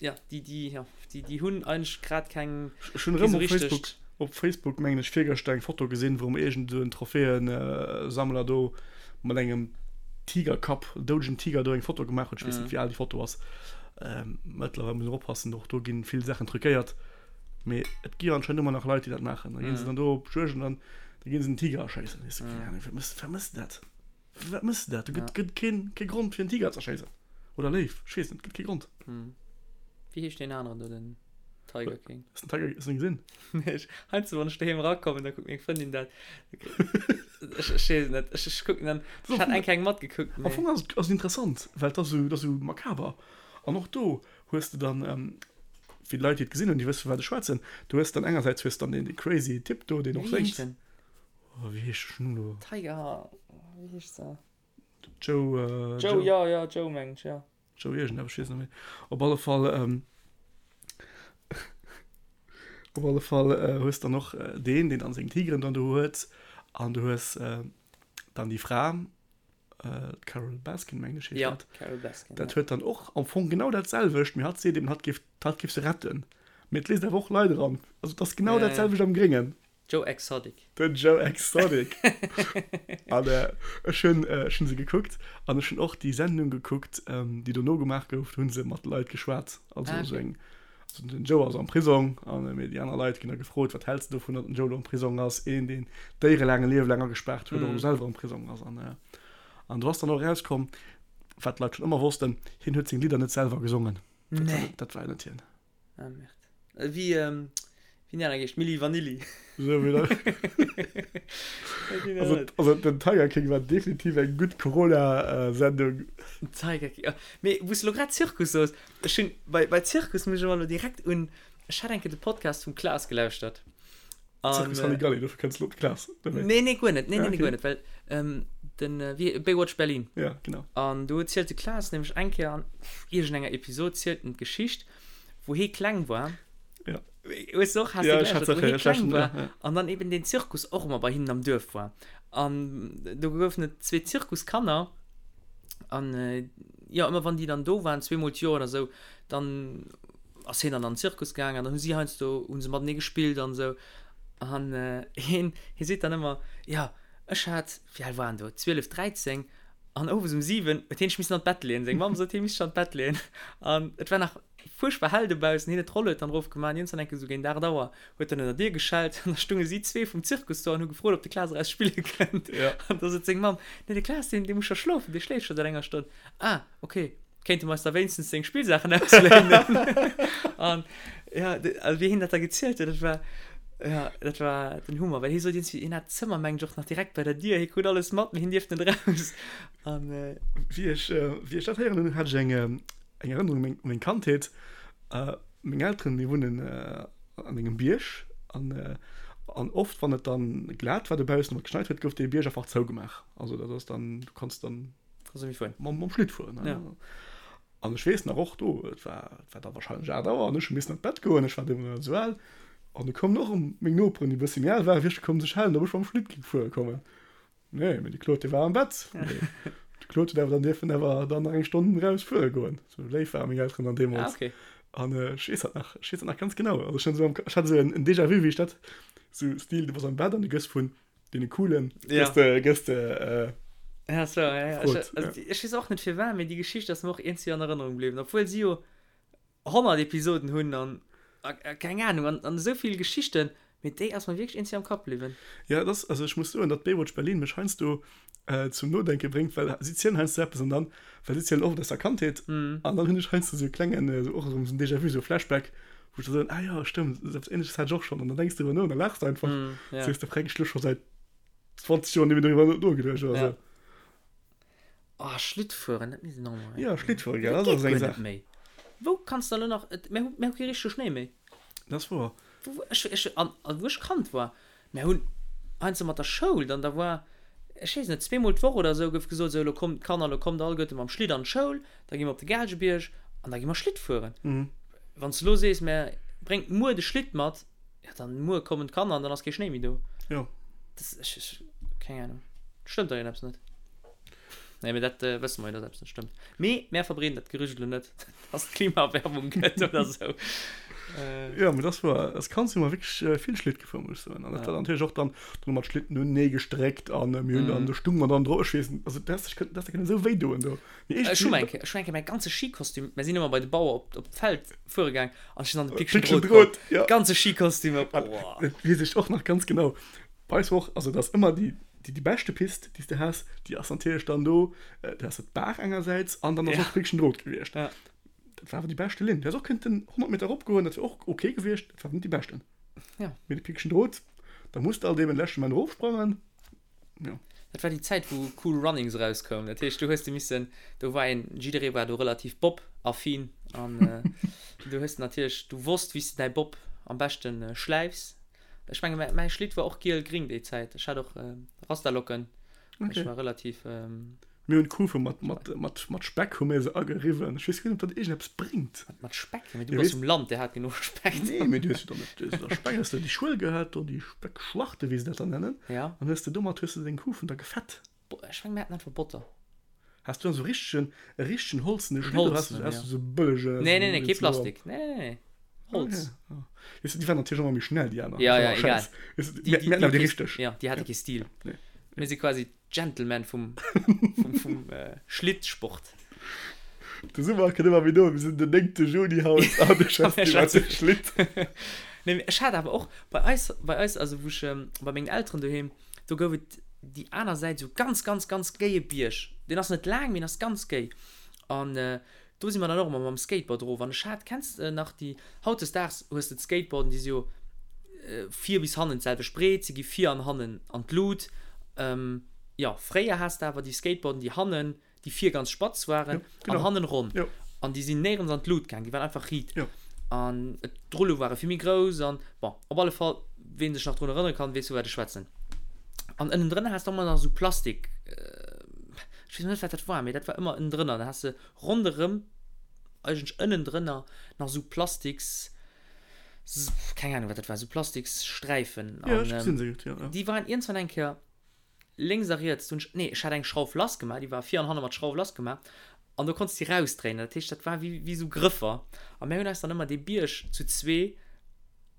jo, déi, déi, jo, déi, déi hunn eigentlech grad keng, Ech hunn erëm op Facebook, op Facebook mengen ech virgëschter eng Foto gesinn, wou iergend esou en Trophäensammler do mat engem Tigerkapp, doudegen Tiger do eng Foto gemaach huet. Ech weess net, wéi al déi Foto ass. Mëttlerweil muss een och oppassen, och do ginn vill Saachen truquéiert. Mee et gi jo anscheinend ëmmer nach Leit, déi dat maachen. Da ginn se dann do op Juegd an dann da ginn se en Tiger erschéissen. Weess de, keng Ahnung, wat mëss, wat mëss de dat? Fir wat mëss de dat? Do gëtt, gëtt keen, kee Grond fir en Tiger ze erschéissen. Oder Léif, ech weess net, gëtt kee Grond. Wéi heescht deen aneren do, den Tiger King? Hues den Tiger, hues du en gesinn? Nee, ech, heiansdo wann ech doheem erakommen, da kuckt meng Frëndin dat. Ech, ech weess et net. Ech, ech kucken dann, ech hat eng Kéier eng matgekuckt, mee. Am Fong ass et, ass et interessant, well et ass esou, et ass esou makaber. An och do hues de dann, fir déi Leit, déi et gesinn hunn, déi wësse vu wat ech schwätzen, du hues dann engersäits hues dann deen dee crazy Typ do, deen och Wéi heescht séngt. den? Oh, wéi heescht den elo? Tiger, wéi heescht se? Joe, Joe, Joe, jo, jo, Joe mengen ech, jo. Joe iergendeppes, ech weess net méi. Op alle Fall, op alle Fall hues dann och deen, deen dann seng Tigeren dann do huet an du hues dann déi Fra, D'Carole Baskin, mengen ech, heescht Ja, dat. Carole Baskin, Dat ja. huet dann och am Fong genau dat selwecht, mee hatt seet eben, hatt géif, hatt géif se retten. Mee et léisst awer och Leit eran. Also et ass genau Ja, dat ja. selwecht am Gréngen. Joe Exotic. Den Joe Exotic. An ech hunn, ech hunn se gekuckt an ech hunn och déi Sendung gekuckt, déi dono gemaach gouf. Do hu se mat Leit geschwat, also Ah, esou okay. eng, also den Joe ass am Prisong an mee déi aner Leit ginn da gefrot, wat häls de dovun, datt den Joe elo am Prisong ass, een deen Déiere laang e Liewe laang agespaart huet, och elo selwer am Prisong ass. An an do ass dann och erauskomm, wat d'Leit schonn ëmmer wossten, hien huet seng Lidder net selwer gesongen. Dat war Nee. net, dat war net hien. Ah merde. Wéi wéi déi aner geescht, Milli Vanilli. Sou wéi dat. Also, also den Tiger King war definitiv eng gutt Corona-Sendung. Tiger King, oh. Mee wou s de lo grad Zirkus soos, ech hunn bei, bei Zirkus muss ech ëmmer lo direkt un, ech hat eng Kéier de Podcast vum Klaas gelauschtert. An, Zirkus Halligalli, dofir kënns de lo op de Klaas, oder wéi? Nee, nee, guer net, nee, nee, nee, guer net, well den, wéi, Baywatch Berlin. Ja, genau. An do zielt de Klaas nämlech eng Kéier an iergendenger Episod zielt en d'Geschicht, wou hee kleng war. Ja. Hues du och, has ja, du geläschert, wou hee kleng war ja, ja. an dann eben den Zirkus och ëmmer bei hinnen am Duerf war. An do goufen et zwee Zirkuskanner an äh, ja, ëmmer wann déi dann do waren, zweemol d'Joer oder sou, dann. ass hien dann an den Zirkus gaangen an dann hu si heiansdo hu se matenee gespillt an esou. An hien, hie seet dann ëmmer, jo ech hat, wéi al war en do, 12, 13 an owes um 7 huet hien sech missen an d'Bett leeën. Seng Mamm sot, hie misst sech an d'Bett leeën an et war nach fuerchtbar hell dobaussen. Hien huet d'Rollued dann erofgemaach an iergendwann eng Kéier esou géint 8 Auer huet en un der Dier geschellt an da stounge si zwee vum Zirkus do an hu gefrot, ob de Klaas eraus spille kënnt. An da sot seng Mamm, Nee, de Klaas, deen, dee muss scho schlofen, dee schléift scho säit enger Stonn. Ah, okay, kéinte mer eis da wéinstens seng Spillsaachen ausléinen? An ja, also wéi hien dat da gezielt huet, dat war, ja, dat war den Hummer, well hie sot iergendwéi, hien hat d'Zëmmer, mengen ech, och nach direkt bei der Dier, hie krut alles mat, mee hien dierft net eraus. An. Wéi ech, wéi ech dat héieren hunn, hat ech eng, eng Erënnerung u meng, u meng Kandheet. Meng Elteren, mir wunnen an engem Bierg an, an oft, wann et dann glat war dobaussen oder geschneit huet, gouf dee Bierg einfach zougemaach. Also dat ass dann, du kanns dann. Kannst du méi fueren. Mam, mam Schlitt fueren, ne? Ja. An ech weess nach och do, et war, et war da wahrscheinlech 8 Auer an ech hu missen an d'Bett goen, ech war deemools nach net esou al. An du koumen och erëm meng Noperen, déi e bëssi méi al waren, wierklech koum sech hellen, ob ech mam Schlitt géing fuere kommen. Nee, mee de Claude, dee war am Bett. Mee de Claude huet awer dann dierfen awer dann nach eng Stonn eraus fuere goen. Sou léif ware meng Elteren dann deemools. Ah, okay. An ech weess dat nach, ech weess dat nach ganz genau. Also ech hunn esou am, ech hat esou en, en Déjà-vu, wéi ech dat, sou Stil, du bass am Bett an du gëss vun deene Coolen, Ja. gëss de, gëss de, äh, Ja, so, ja, ja. Gefrot, Ech, also, ja. ech weess och net firwat, mee déi Geschicht ass mer och iergendwéi an Erënnerung bliwwen, obwuel si jo 100 Episoden hunn an a keng Ahnung an an esou vill Geschichten, mee déi ass mer wierklech iergendwéi am Kapp bliwwen. Ja, et ass, also ech muss soen, datt Baywatch Berlin mech heiansdo zum Nodenke bréngt, well si zielen heiansdo eppes an dann, well si zielen oft aus der Kandheet an dann hunn ech heiansdo esou e klengen, esou och erëm esou en Déjà-vu, esou e Flashback, wou ech da soen, ah jo, stëmmt, esou eppes Ähnleches hat ech och schonn an dann denks de driwwer no an da laachs de einfach, sees de, freck, ech hu lo scho säit 20 Joer net méi doriwwer nogeduecht oder esou. Oh, Schlittfueren, dat misst een och mol. Ja, Schlittfueren, gell, dat ass eng Saach. Méi. Wou kanns de elo nach, et, mir hu, mir hu kee richtege Schnéi méi. Dat ass wouer. Wou, ech, ech, an, an wou ech Kand war, mir hunn heiansdo mat der Schoul dann, da war, ech weess net, zweemol d'Woch oder esou gouf gesot, esou, elo kommt d'Kanner, elo kommt alleguerte mam Schlitt an d'Schoul, da gi mer op de Gaalgebierg an da gi mer Schlitt fueren. Wann s de elo sees, mä bréngt muer de Schlitt mat, Ja, dann muer kommen d'Kanner an dann ass kee Schnéi méi do. Jo. Das, ech, ech, keng Ahnung. Stëmmt da iergendeppes net? Nee, mee dat äh, wësse mer jo, dass eppes net stëmmt. Mee mär verbreeden dat Gerücht elo net, dass et Klimaerwärmung gëtt oder sou. Äh. Jo, mee das war, als Kand si mer wierklech äh, vill Schlitt gefuer, muss ech soen. An dat war dann natierlech och dann, dann hu mer d'Schlitten unenee gestréckt an äh, mir hunn dann, do stung mer dann dro, ech weess net, also dat häss dech kënnen, dat häss der kënnen esou wéi doen do. Mee Ech hu eng Kéier, ech hu eng Kéier mäi ganze Skikostüm, mär sinn ëmmer bei de Bauer op, op d'Feld fuere gaang an ech sinn an de Pickchen Drot komm. Ja. Ganze Skikostüm op, boah. Dat weess ech och nach ganz genau. Bei eis war och, also dat ass ëmmer déi, déi, déi beschte Pist, déi s de has, déi ass natierlech dann do, do has de d'Baach engersäits an dann ass och d'Pickchen Drot gewiescht. Ja. Dat war awer déi beschte Linn. Du häss och kënnten 100 Meter eropgoen, dat wier och ok gewiescht, dat war awer net déi beschten. Ja. Mee de Pickchen Drot, da muss de alt eben de leschte Moment erofsprangen. Ja. Dat war déi Zäit wou Cool Runnings erauskoum. Dat heescht du hues de missen, do war een, jidderee war do relativ Bob-affin an du hues natierlech, du wosst wéi s de däi Bob am beschte schläifs. Ech menge mäi mäi Schlitt war och giel-gring déi Zäit. Ech hat och Rastalocken. Okay. Ech war relativ. Mir hunn d'Kufe mat, mat, mat, mat Speck hu mir se ageriwwen. Ech weess guer net, ob dat iergendeppes bréngt. Mat, mat Speck? Mee du bass vum Land, dir hat genuch Speck. Nee, mee du hues jo dann net, du hues jo da Speck, hues de déi Schuel gehat do, déi Speckschlachte, wéi se dat dann nennen. Ja. An hues de domat hues de deng Kufen da gefett. Bo, ech meng, mir haten einfach Botter. Has du dann esou richtegen, e richtegen holzene Schlitt oder has du, Holzenen, has ja. du esou bëllege? Nee, nee, nee, kee Plastik. Nee, nee, nee. Holz. Okay, ja. Weess du, déi waren natierlech ëmmer méi schnell, déi aner. Ja, Das ja, war egal. Schäiss. Weess du, Déi, mir, déi, mir haten déi awer déi kee, richteg. ja, déi hate kee Stil. Nee. Mir si quasi Gentleman vum, vum, vum äh, Schlittsport. De Summer kënnt ëmmer méi no, mir sinn den 9. Juni haut an du schwätz iwwer de Schlitt. Nee, mee ech hat awer och bei eis, bei eis, also wou ech ähm, bei mengen Elteren doheem, do gouf et déi aner Säit esou ganz, ganz, ganz géie Bierg. Deen ass net laang, mee en ass ganz géi. An äh, Do si mer dann och ëmmer mam Skateboard erof. An ech hat, kenns de nach déi, hautdesdaags hues de d'Skateboarden, déi si jo vir bis hannen d'selwecht breet, se gi vir an hannen an d'Lut. Jo, fréier has de awer déi Skateboarden, déi hannen, déi vir ganz spatz waren an hannen ronn. An déi sinn néierens an d'Lut gaang, déi waren einfach riit. An d'Rullo ware vill méi grouss an, bon, op alle Fall, ween sech nach drun erënnere kann, weess vu wat ech schwätzen. An ënnendrënner has de ëmmer nach esou Plastik, ech weess net wat dat war, mee dat war ëmmer ënnendrënner, da has de ronderëm, eigentlech ënnendrënner nach esou Plastiks, keng Ahnung wat dat war, esou Plastikssträifen. Ja, ech gesinn se gutt, jo, jo. Déi waren iergendwann eng Kéier lénks a riets, hunn ech, nee, ech hat eng Schrauf lass gemaach, déi war vir an hanne mat Schrauf lass gemaach. An do konns de déi rausdréinen. Dat heescht, dat war wéi, wéi esou Grëffer. A mir hunn eis dann ëmmer dee Bierg zu zwee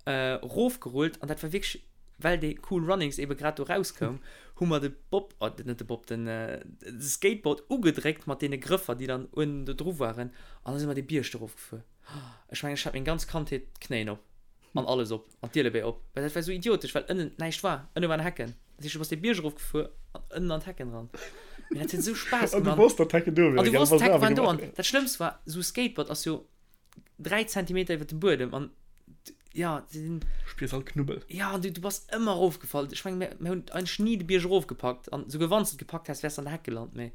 erofgerullt. An dat war wierklech, well dee Cool Runnings ebe grad do rauskoum, hu mer de Bob, oh, net de Bob, den Skateboard ugedréckt mat deene Grëffer, déi dann uewen do dru waren. An da si mer dee Bierg do erofgefuer. Ech mengen, ech hat meng ganz Kandheet d'Knéien op. An alles op, an d'Ielebéi op, well dat war esou idiotesch, well ënnen näischt war, ënne waren Hecken. Dat heescht, du bass dee Bierg erof gefuer an ënnen an d'Hecken eran. Mee dat huet esou Spaass An du gemaach. wosst, datt d'Hecken do An wieren, du gell? wosst, Bass d'Hecke awer waren do. gemaach. An dat Schlëmmst war, esou e Skateboard ass jo 3 Zentimeter iwwer dem Buedem an jo, se sinn. Spiers all Knubbel. Jo, an du, du bass ëmmer erofgefall. Ech mengen, mir, mir hunn eigentlech ni de Bierg erofgepackt an souguer wann s de et gepackt häss, wäers de an der Heck gelant. Mee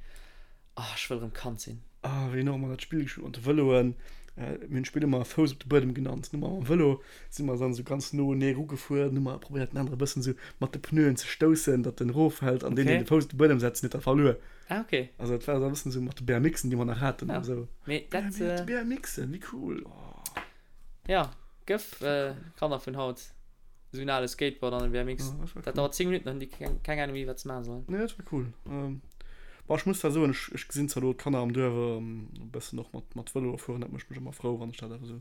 Ah, ech wëll erëm Kand sinn. Ah, wéi nach ëmmer dat Spill gespillt mat de Vëloen. Mir hunn d'Spill ëmmer Fouss op de Buedem genannt. Hu mer mam Vëlo si mer dann esou ganz no enee erugefuer, hu mer probéiert den anere e bëssen esou mat de Pneuen ze stoussen, datt en eroffält an deen, deen de Fouss op de Buedem setzt, huet da verluer. Ah, okay. Also dat war esou e bëssen esou mat de BMXen, déi mer nach haten Ja, an esou. mee dat. Ja, mee BMXen, wéi cool, oh. Ja, gëff Kanner vun haut esou en ale Skateboard an en BMX. Ja, dat war Dat cool. dauert 10 Minutten, dann hunn déi keng, keng Ahnung méi, wat se maache sollen. Nee, dat war cool. Ähm, bon, ech muss zwar soen, ech, ech gesinn zwar elo d'Kanner am Duerf ähm, e bëssen och mat, mat Vëloe fueren, dat mécht mech ëmmer frou, wann ech dat awer esou.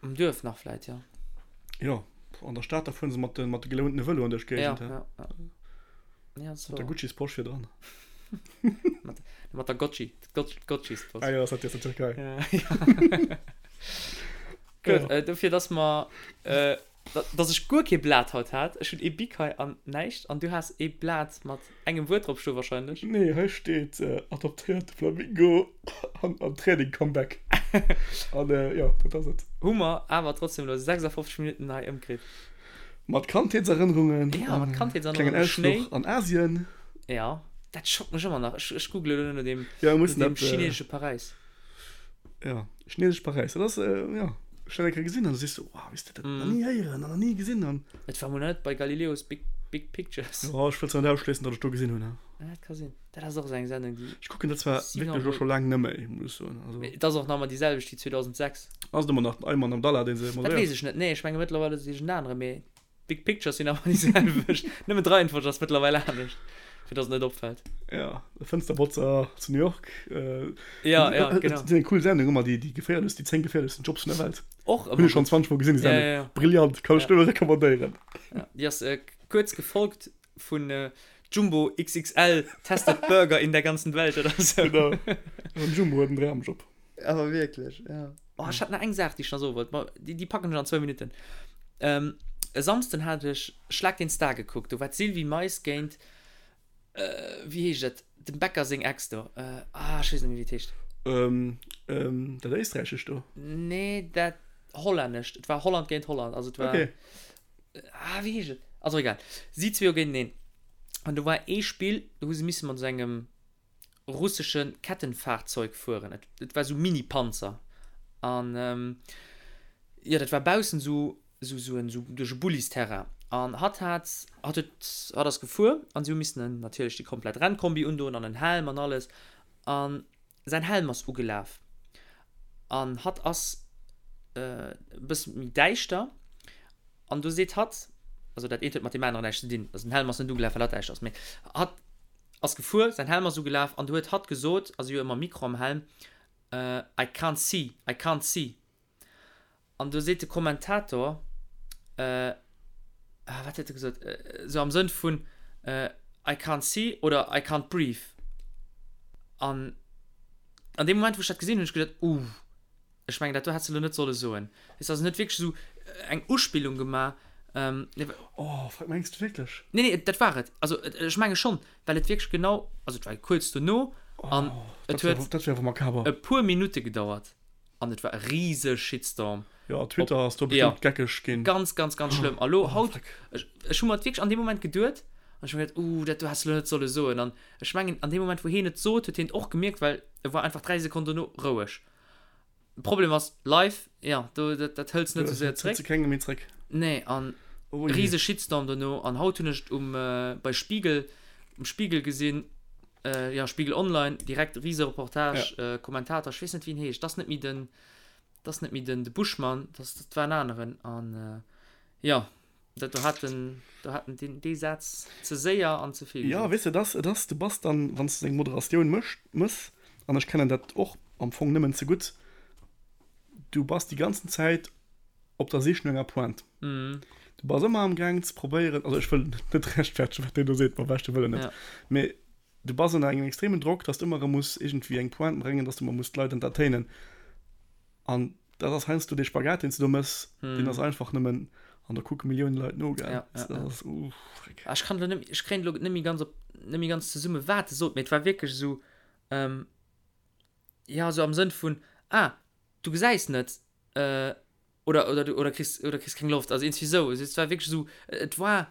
Am Duerf nach vläit, jo. Jo, an der Stad, da fueren se mat de, mat de gelountene Vëloen duerch Ja, d'Géigend, hä? ja, ja. Ja, dat ass Mat der wouer. Gucci's-Posch virdran. Mat, mat der Gotchi, d'Gotchis-Posch. Ah jo, ass dat déi aus der Türkei? Ja, ja. Gutt, Ja. äh, dofir, dass mer, äh, Dass ech guer kee Blat haut hat. Ech hunn ee Bic hei an näischt. An du has ee Blat mat engem Wuert drop stoe wahrscheinlech. Nee, hei steet adoptéierte Flamingo an an Training Comeback. An jo, dat ass et. Hu mer awer trotzdem elo 56 Minutten hei ëmkritt. Mat Kandheetserënnerungen Ja, mat an klengen Kandheetserënnerungen, Schnéi. Ausfluch an Asien. Ja, dat schockt mech ëmmer nach. Ech, ech googlen elo no deem, Ja, mir no mussen deem dat. chinesesche Paräis. Ja, chinesesch Paräis, dat ass, jo, ech dat eng Kéier gesinn an du sees sou, wow, wéi s de dat nach ni héieren an nach ni gesinn an. Et war mol net bei Galileo's Big, Big Pictures. Jo, ech wëll zwar net ausschléissen, datt ech do gesinn hunn, ha. Ja, dat ka sinn. Dat ass och esou eng Sendung, déi. Ech kucken dat zwar wierklech elo scho laang net méi, muss ech soen, also. Mee et ass och nach ëmmer déi selwecht wéi 2006. Ass et ëmmer nach den Ayman Abdallah, dee se Dat moderéiert? weess ech net, nee, ech menge mëttlerweil ass et iergend anere, mee Big Pictures sinn awer déi selwecht. Nëmmen d'Reihenfolg ass mëttlerweil anescht, fir dass et net opfält. Ja, de Fënsterbotzer zu New York. Äh, Ja, ja, äh, genau. Dat ass eng cool Sendung ëmmer, déi, déi geféierlechst, déi 10 geféierlechsten Jobs vun der Welt. Och Hunn ëmmer ech schonn gutt. 20 Mol gesinn, déi Ja, Sendung. ja, ja. Brillant, kann ech Ja. nëmme recommandéieren. Ja, déi ass äh, kuerz gefolgt vun äh, Jumbo XXL testet Burger in der ganzen Welt oder sou. Genau. An Jumbo huet en Dramjob. Awer wierklech, ja. Oh, ech hat nach eng Saach, déi ech nach soe wollt. Ma déi, déi packen ech an zwou Minutten. Ähm, e Samsden hat ech Schlag den Star gekuckt. Do war d'Sylvie Mais géint, äh, wéi heescht et, dem Becker seng Ex do. Äh, ah, ech weess net méi, wéi et heescht. Ähm, ähm, dat Éisträichescht do? Nee, dat Hollännescht. Et war Holland géint Holland. Also et war. Okay. Ah, wéi heescht et? Also egal. Si zwee jo géinteneen. An do war ee Spill, do hu se misse mat esou engem russesche Kettenfahrzeug fueren. Et, et war sou Mini-Panzer. An ähm, jo, dat war baussen sou, sou, sou en, sou duerch e Bullisterrain. An hatt hat, hatt huet, hatt ass gefuer an si hu missen en natierlech déi komplett Rennkombi undoen an en Helm an alles. An säin Helm ass ugelaf. An hatt ass e bësse méi däischter. An du seet hatt, also dat eent huet mat deem aneren näischt ze dinn, also den Helm ass net ugelaf, well hatt däischter ass, mee hatt ass gefuer, säin Helm ass ugelaf an du huet hatt gesot, ass jo ëmmer Mikro am Helm, I can't see, I can't see. An du seet de Kommentator, ah wat huet e gesot, esou am Sënn vun I can't see oder I can't breathe. An an deem Moment wou ech dat gesinn hunn, hunn ech geduet, uh. Ech mengen, dat do häss de elo net solle soen. Weess de, also en huet wierklech esou eng Uspillung gemaach. Nee, Oh, fuck, mengs de wierklech? nee, nee, dat war et. Also ech menge schonn, well et wierklech genau, also et war kuerz dono an Oh, et dat wär, huet dat wär awer makaber. e puer Minutte gedauert an et war e rise Shitstorm. Ja, Twitter Op, ass do ja, bestëmmt geckeg ginn. ganz, ganz, ganz schlëmm. A lo, Oh, haut, fuck. ech, ech hu mer et wierklech an deem Moment geduet an ech hu mer geduet, uh, dat do häss de elo net solle soen. An ech mengen, an deem Moment, wou hien et sot, huet hien et och gemierkt, well e war einfach 3 Sekonnen dono roueg. Problem ass live, ja, do dat, dat hëls net sou séier Hëls zréck. de kengem méi zréck. Nee, an Oh je. riese Shitstorm dono an haut hunn ech et um äh, bei Spiegel um Spiegel gesinn, äh, ja Spiegel Online, direkt riese Reportage, Ja. äh, Kommentator, ech weess net wéi en heescht, dat ass net méi den dat ass net méi den de Buschmann, dat dat war en aneren an äh, ja. Dat do hat en, do hat en deen, dee Saz ze séier an ze vill Jo, gesot. weess de, et ass, et ass, du bass dann, wann s de eng Moderatioun mécht, mëss, an ech kennen dat och am Fong nëmmen ze gutt, du bass déi ganzen Zäit op der Sich no enger Pointe. Du bass ëmmer am Gaang ze probéieren, also ech wëll net rechtfertegen, wat deen do seet, mam beschte Wëllen net, mee du bass ënner engem extremen Drock, dass du ëmmer erëm muss iergendwéi eng Pointe bréngen, dass du ëmmer muss d'Leit entertainen. An dat ass heiansdo dee Spagat, deen s du do méchs, deen ass einfach nëmmen, an da kucke Millioune Leit no, gell. Ja, ja, ja. Dat ass, uh, freck. Ah, ech kann elo net, ech kréien elo net méi ganz op, net méi ganz zesummen, wat e sot, mee et war wierklech esou, ähm, jo, esou am Sënn vun, ah, du gesäis net, äh, oder, oder du, oder kriss, oder kriss keng Loft, also iergendwéi esou. Also et war wierklech esou, et war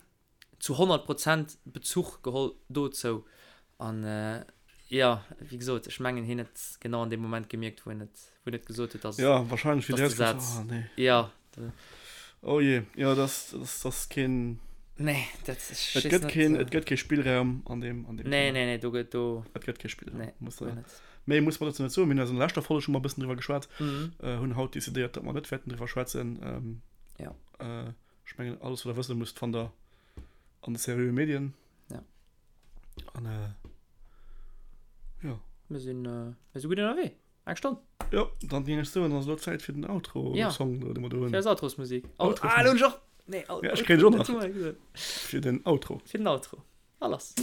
zu 100 Prozent Bezuch geholl dozou. An jo, wéi gesot, ech mengen hien huet genau an deem Moment gemierkt, wou en et, wou en et gesot huet, dass, Ja, wahrscheinlech, wéi dass de Saz, oh, nee. jo. Oh je, jo, das, das, das keen. Nee, dat, ech Et weess gëtt net. keen, et gëtt kee Spillraum an deem, an deem Nee, Thema. nee, nee, do gëtt, do. Et gëtt kee Spillraum, Nee, muss guer der. net. Méi muss mer dozou net soen. Mir hunn eis an der leschter Folg scho mol e bëssen driwwer geschwat, Mhm. hunn haut decidéiert, datt mer net wäerten driwwer schwätzen. Ja. Ech mengen, alles, wat der wësse musst, fannt der an de seriöe Medien. Ja. An jo. Mir sinn, mir si gutt ënnerwee. Eng Stonn. Jo, dann géing ech soen, ass elo Zäit fir den Outro-Song, ja. dee mer do hunn. Fir eis Outrosmusik. Outrosmusik. Ah, elo hunn ech och. Nee, ja, ech kréien ech och nach. Fir den Outro. Fir den Outro. A lass.